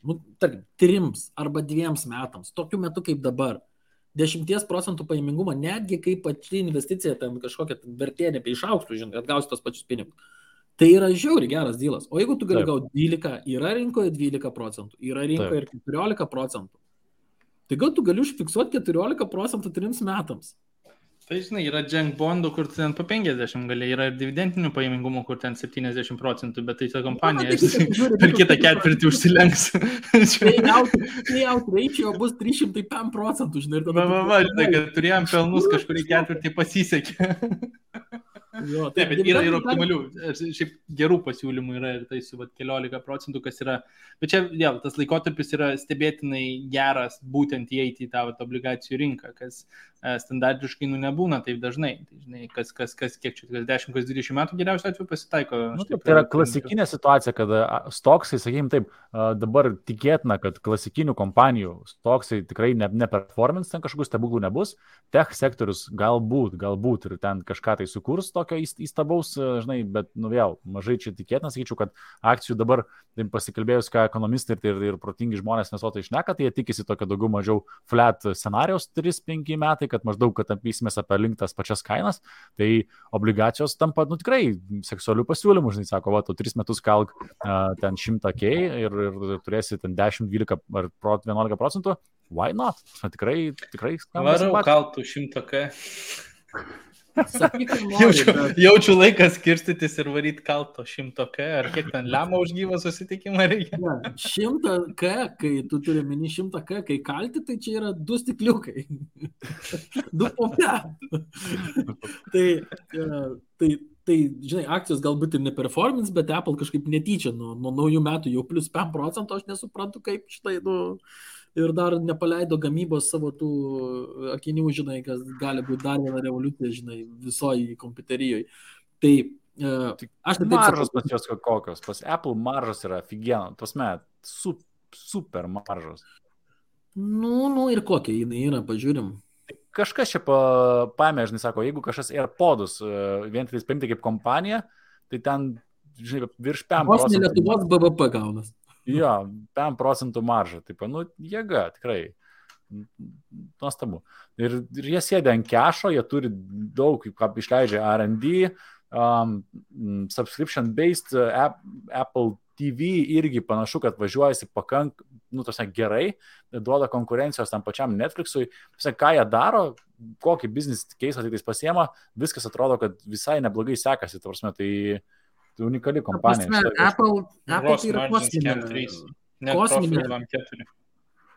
3 arba 2 metams, tokiu metu kaip dabar, 10% pajamingumą, netgi kaip pati investicija ten kažkokia vertė nebeišauktų, žinai, atgausi tos pačius pinigus. Tai yra žiauriai geras dylas. O jeigu tu gali gauti 12, yra rinkoje 12%, yra rinkoje ir 14%. Tai gal tu gali užfiksuoti 14% 3 metams. Tai žinai, yra junk bondų, kur ten po 50 gali, yra ir dividendinių pajamingumų, kur ten 70%, bet tai ta kompanija per kitą ketvirtį užsilenks. Payout ratio bus 305%, žinai. Žinai, kad turėjom pelnus kažkurį ketvirtį pasisekė. Jo, taip, bet yra ir optimalių, šiaip gerų pasiūlymų yra ir tai su 14%, kas yra, bet čia vėl tas laikotarpis yra stebėtinai geras būtent įeiti į tą obligacijų rinką, kas standartiškai nebūna taip dažnai. Tai, žinai, kas kiek čia, 10, 20 metų geriausiu atveju pasitaiko. Tai yra klasikinė situacija, kad stoksai, sakykime taip, dabar tikėtina, kad klasikinių kompanijų stoksai tikrai neperformins, ten kažkokių stebuklų nebus, tech sektorius galbūt ir ten kažką tai sukurs tokio įstabaus, žinai, bet vėl mažai čia tikėtina, sakyčiau, kad akcijų dabar pasikalbėjus, ką ekonomistai ir protingi žmonės nesotai šneka, tai jie tikisi tokio daugiau mažiau flat scenarijos 3-5 metai, kad maždaug, kad apysimės apie link tas pačias kainas, tai obligacijos tampa, tikrai seksualių pasiūlymų, žinai, sako, tu 3 metus kalk ten 100K ir turėsi ten 10, 12 ar 11%, why not? Tikrai varau kaltų 100K. Jaučiu laikas skirstytis ir varyti kalto 100K, ar kiek ten lemą už gyvą susitikimą reikia? 100K, kai tu turi mini 100K, kai kalti, tai čia yra 2 stikliukai. 2 po 5. Tai, žinai, akcijos galbūt ir neperformins, bet Apple kažkaip netyčia nuo naujų metų jau plus 5%, aš nesuprantu, kaip štai, ir dar nepaleido gamybos savo tų akinių, žinai, kas gali būti dar viena revoliucija, žinai, visoji kompiuterijoje. Tai aš taip maržos pas jos kokios, pas Apple maržos yra aфигенно, tasme, super maržos. Nu ir kokia jinai yra, pažiūrim. Kažkas čia paėmė, žinai, sako, jeigu kažkas AirPodus vien tik paimti kaip kompanija, tai ten žinai, virš 5%. Vos ne Lietuvos BVP gaunas. Jo, 5% marža, taip, nu, jėga, tikrai. Nuostabu. Ir jie sėdė ant kešo, jie turi daug, kaip išleidžia R&D, subscription-based Apple TV irgi panašu, kad važiuojasi gerai, duoda konkurencijos tam pačiam Netflixui. Ką jie daro, kokį business case tai pasiema, viskas atrodo, kad visai neblogai sekasi. Tai unikali kompanija. Apple tai yra kosminė.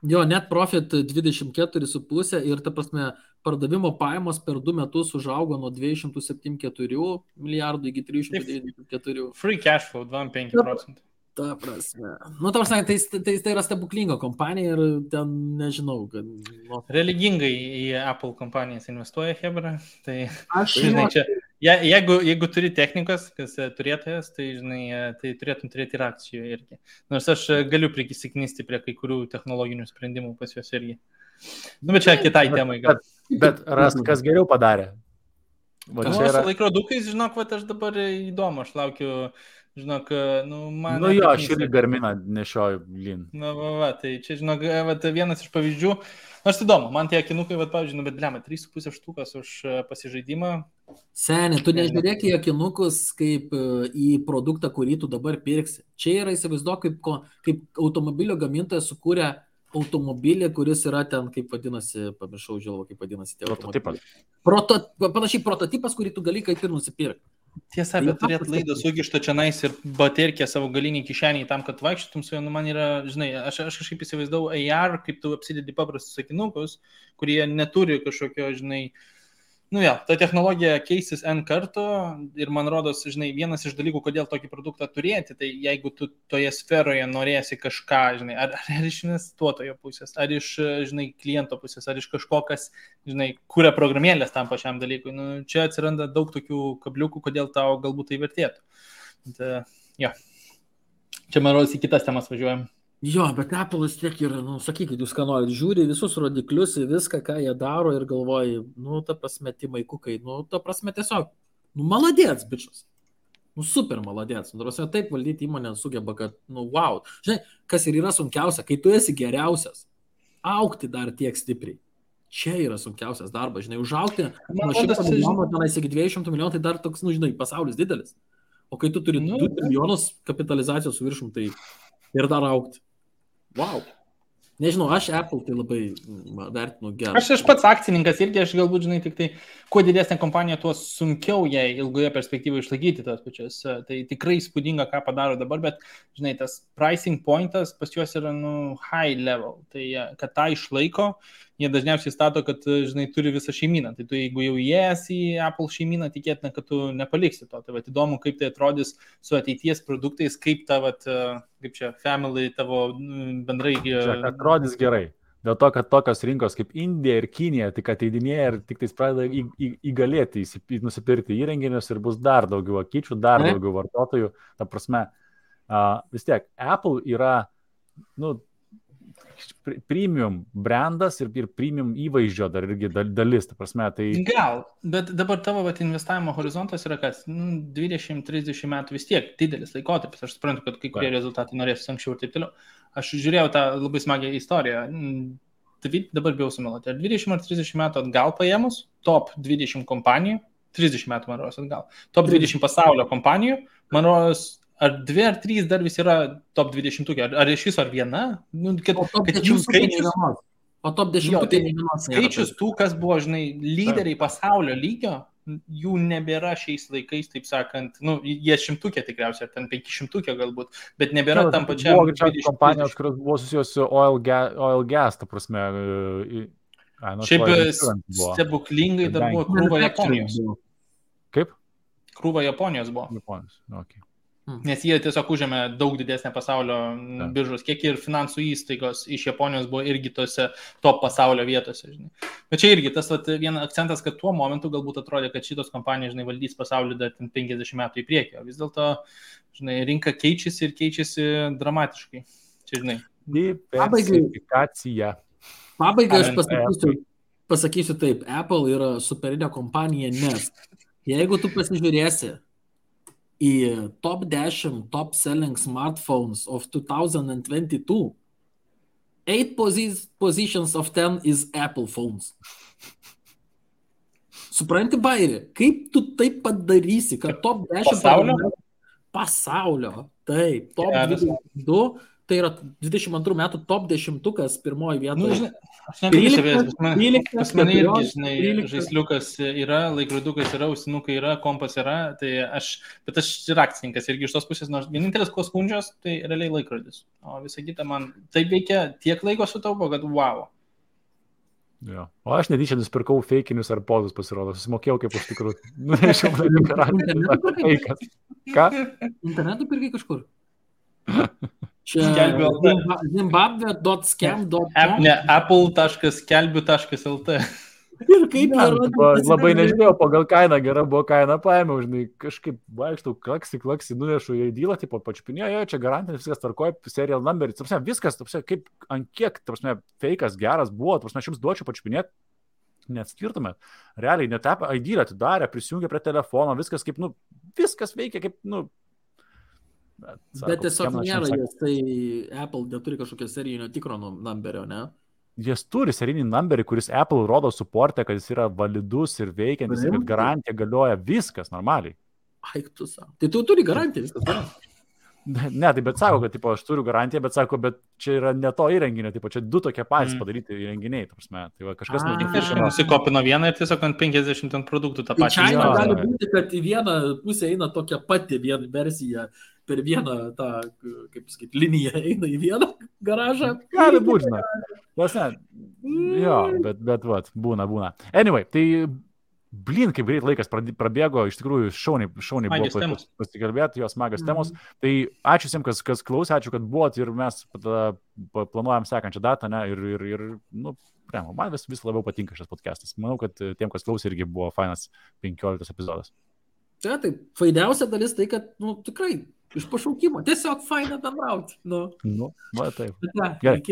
Jo, net profit 24,5 ir, ta prasme, pardavimo pajamos per 2 metus užaugo nuo 274 milijardų iki 394. Free cash flow 25%. Ta prasme. Nu, ta prasme, tai yra stebuklinga kompanija ir ten nežinau, kad... Religingai į Apple kompanijas investuoja Hebra, tai... žinai, čia, jeigu turi technikos, kas turėtojas, tai, žinai, tai turėtum turėti ir akcijų irgi. Nors aš galiu prisiknisti prie kai kurių technologinių sprendimų pas juos irgi. Nu, bet čia kitai temai gal. Bet kas geriau padarė? Su laikrodukais, žinok, aš dabar įdomu, aš laukiu... Žinok, man... Jo, aš irgi Garminą nešioju lin. Tai čia, žinok, vienas iš pavyzdžių. Nors įdomu, man tie akinukai, pavyzdžiui, bet blema, 3,5 štukas už pasižaidimą. Seni, tu nežiūrėk į akinukus kaip į produktą, kurį tu dabar pirksi. Čia yra, įsivaizduok, kaip automobilio gamintojas sukūrė automobilį, kuris yra ten, kaip vadinasi, pamiršau žilvo, kaip vadinasi. Prototipas. Panašiai prototipas, kurį tu gali kaip ir nusipirkti. Tiesa, bet turėt laidą sugištą čia nais ir baterkę savo galinį kišenį tam, kad vaikščiotum su juo, man yra, žinai, aš kažkaip įsivaizdavau AR, kaip tu apsidedi paprastus akinukus, kurie neturi kažkokio, žinai, ta technologija keisis N kartų ir man rodos, žinai, vienas iš dalykų, kodėl tokį produktą turėti, tai jeigu tu toje sferoje norėsi kažką, žinai, ar iš investuotojo pusės, ar iš, žinai, kliento pusės, ar iš kažko, kas, žinai, kuria programėlės tam pačiam dalykui, čia atsiranda daug tokių kabliukų, kodėl tau galbūt tai vertėtų. Čia, man rodos, į kitas temas važiuojam. Jo, bet Apple'as tiek yra, sakykit, jūs ką norit, žiūri visus rodiklius, viską, ką jie daro ir galvoji, ta prasme, Timaikukai, ta prasme, tiesiog, maladėts, bičias. Super maladėts. Taip valdyti įmonę sugeba, kad, wow. Žinai, kas ir yra sunkiausia, kai tu esi geriausias, augti dar tiek stipriai. Čia yra sunkiausias darbas, žinai, užaugti nuo 100 milijonų tenais iki 200 milijonų, tai dar toks, žinai, pasaulis didelis. O kai tu turi 2 milijonus kapitalizacijos su viršum, tai ir dar augti. Wow. Nežinau, aš Apple tai labai vertinu gerai. Aš pats akcininkas irgi, aš galbūt, žinai, tik tai, kuo didesnė kompanija, tuo sunkiau jai ilgoje perspektyvoje išlaikyti tas pačias. Tai tikrai įspūdinga, ką padaro dabar, bet, žinai, tas pricing pointas pas juos yra, high level. Tai, kad tą išlaiko, jie dažniausiai stato, kad, žinai, turi visą šeimyną. Tai tu, jeigu jau įėjęs į Apple šeimyną, tikėtina, kad tu nepaliksi to. Tai įdomu, kaip tai atrodys su ateities produktais, kaip ta, kaip čia, family tavo bendrai... Čia atrodys gerai. Dėl to, kad tokios rinkos kaip Indija ir Kinija tik ateidinėja ir tik tais pradeda įgalėti, nusipirkti įrenginius ir bus dar daugiau akyčių, dar daugiau vartotojų. Ta prasme, vis tiek, Apple yra, premium brandas ir premium įvaizdžio dar irgi dalis, ta prasme, tai... Gal, bet dabar tavo investavimo horizontas yra kas, 20-30 metų vis tiek didelis laikotarpis, aš suprantu, kad kai kurie rezultatai norės anksčiau ir taip toliau. Aš žiūrėjau tą labai smagią istoriją, dabar bijau sumeluoti, ar 20 ar 30 metų atgal paėmus, top 20 kompanijų, 30 metų man rodos atgal, top 20 pasaulio kompanijų, man rodos, ar 2 ar 3 dar vis yra top 20, ar iš viso ar viena? Kad jų skaičius... O top 10 tai skaičius tų, kas buvo, žinai, lyderiai pasaulio lygio, jų nebėra šiais laikais, taip sakant, jie 100 tikriausiai, ar ten 500 galbūt, bet nebėra tam pačiam... Buvo greičiausiai kompanijos, kurios buvo susijęs su oil gas, ta prasme... Šiaip stebuklingai dar buvo krūva Japonijos. Kaip? Krūva Japonijos buvo. Japonijos, okei. Nes jie tiesiog užėmė daug didesnę pasaulio biržos kiekį ir finansų įstaigos iš Japonijos buvo irgi tose top pasaulio vietose. Žinai. Bet čia irgi tas vienas akcentas, kad tuo momentu galbūt atrodė, kad šitos kompanijos, žinai, valdys pasaulį dar 50 metų į priekį. Vis dėlto, žinai, rinka keičiasi ir keičiasi dramatiškai. Čia, žinai. Diversifikacija. Pabaigai aš pasakysiu taip, Apple yra superinė kompanija, nes jeigu tu pasižiūrėsi į top 10 top selling smartphones of 2022, 8 positions of 10 is Apple phones. Supranti, Bairi, kaip tu taip padarysi, kad top 10 pasaulio, taip, top 22, tai yra 22 metų top 10 pirmoji vietoje. Aš nepriešavėjęs, pas mane irgi, žinai, žaisliukas yra, laikrodukas yra, ausinukai yra, kompas yra, bet aš ir akcininkas irgi iš tos pusės, nors vienintelis ko skundžios, tai realiai laikrodis. O visą kitą man taip veikia, tiek laiko sutaupo, kad wow. Jo. O aš netyčia nusipirkau feikinius ar podus, pasirodo, susimokėjau kaip už tikrų. Ką? Internetu pirkai kažkur? Čia zimbabwe.scam.com Ne, apple.skelbiu.lt Ir kaip labai nežinėjau, pagal kainą gera buvo kaina, paėmiau, žinai, kažkaip vaikštau, klaksi, nunešu į dylą, tipo, pačiupinėjo, čia garantinis viskas tvarkoja, serial number, viskas, kaip ant kiek, feikas geras buvo, aš jums duočiau pačiupinėti, neatskirtumėt. Realiai, net ID atidarė, prisijungė prie telefono, viskas kaip, viskas veikia kaip, Bet tiesiog nėra jas, tai Apple neturi kažkokio serijinio tikro numberio, ne? Jis turi serijinį numberį, kuris Apple rodo suportę, kad jis yra validus ir veikiantis, kad garantija galioja viskas normaliai. Aik tu savo. Tai tu turi garantiją, viskas gerai. Ne, tai bet sako, kad tipo, aš turiu garantiją, bet sako, bet čia yra ne to įrenginio, tipo, čia du tokie patys padaryti įrenginiai, tai va, kažkas nusikopino vieną ir tiesiog ant 50 produktų tą pačią. Čia gali būti, kad į vieną pusę eina tokia pati versija, per vieną tą, kaip sakyti, liniją eina į vieną garažą. Gali būti, jo, bet vat, būna. Anyway, tai blin, kaip greit laikas prabėgo, iš tikrųjų šauniai buvo pasikalbėti, jos smagios temos. Tai ačiū visiems, kas klausė, ačiū, kad buvot ir mes planuojam sekančią datą, ne, ir man vis labiau patinka šis podcastas. Manau, kad tiem, kas klausė, irgi buvo fainas 15 epizodas. Tai fainiausia dalis tai, kad, tikrai, iš pašaukimo, tiesiog faina bendrauti. Va taip. Gerai,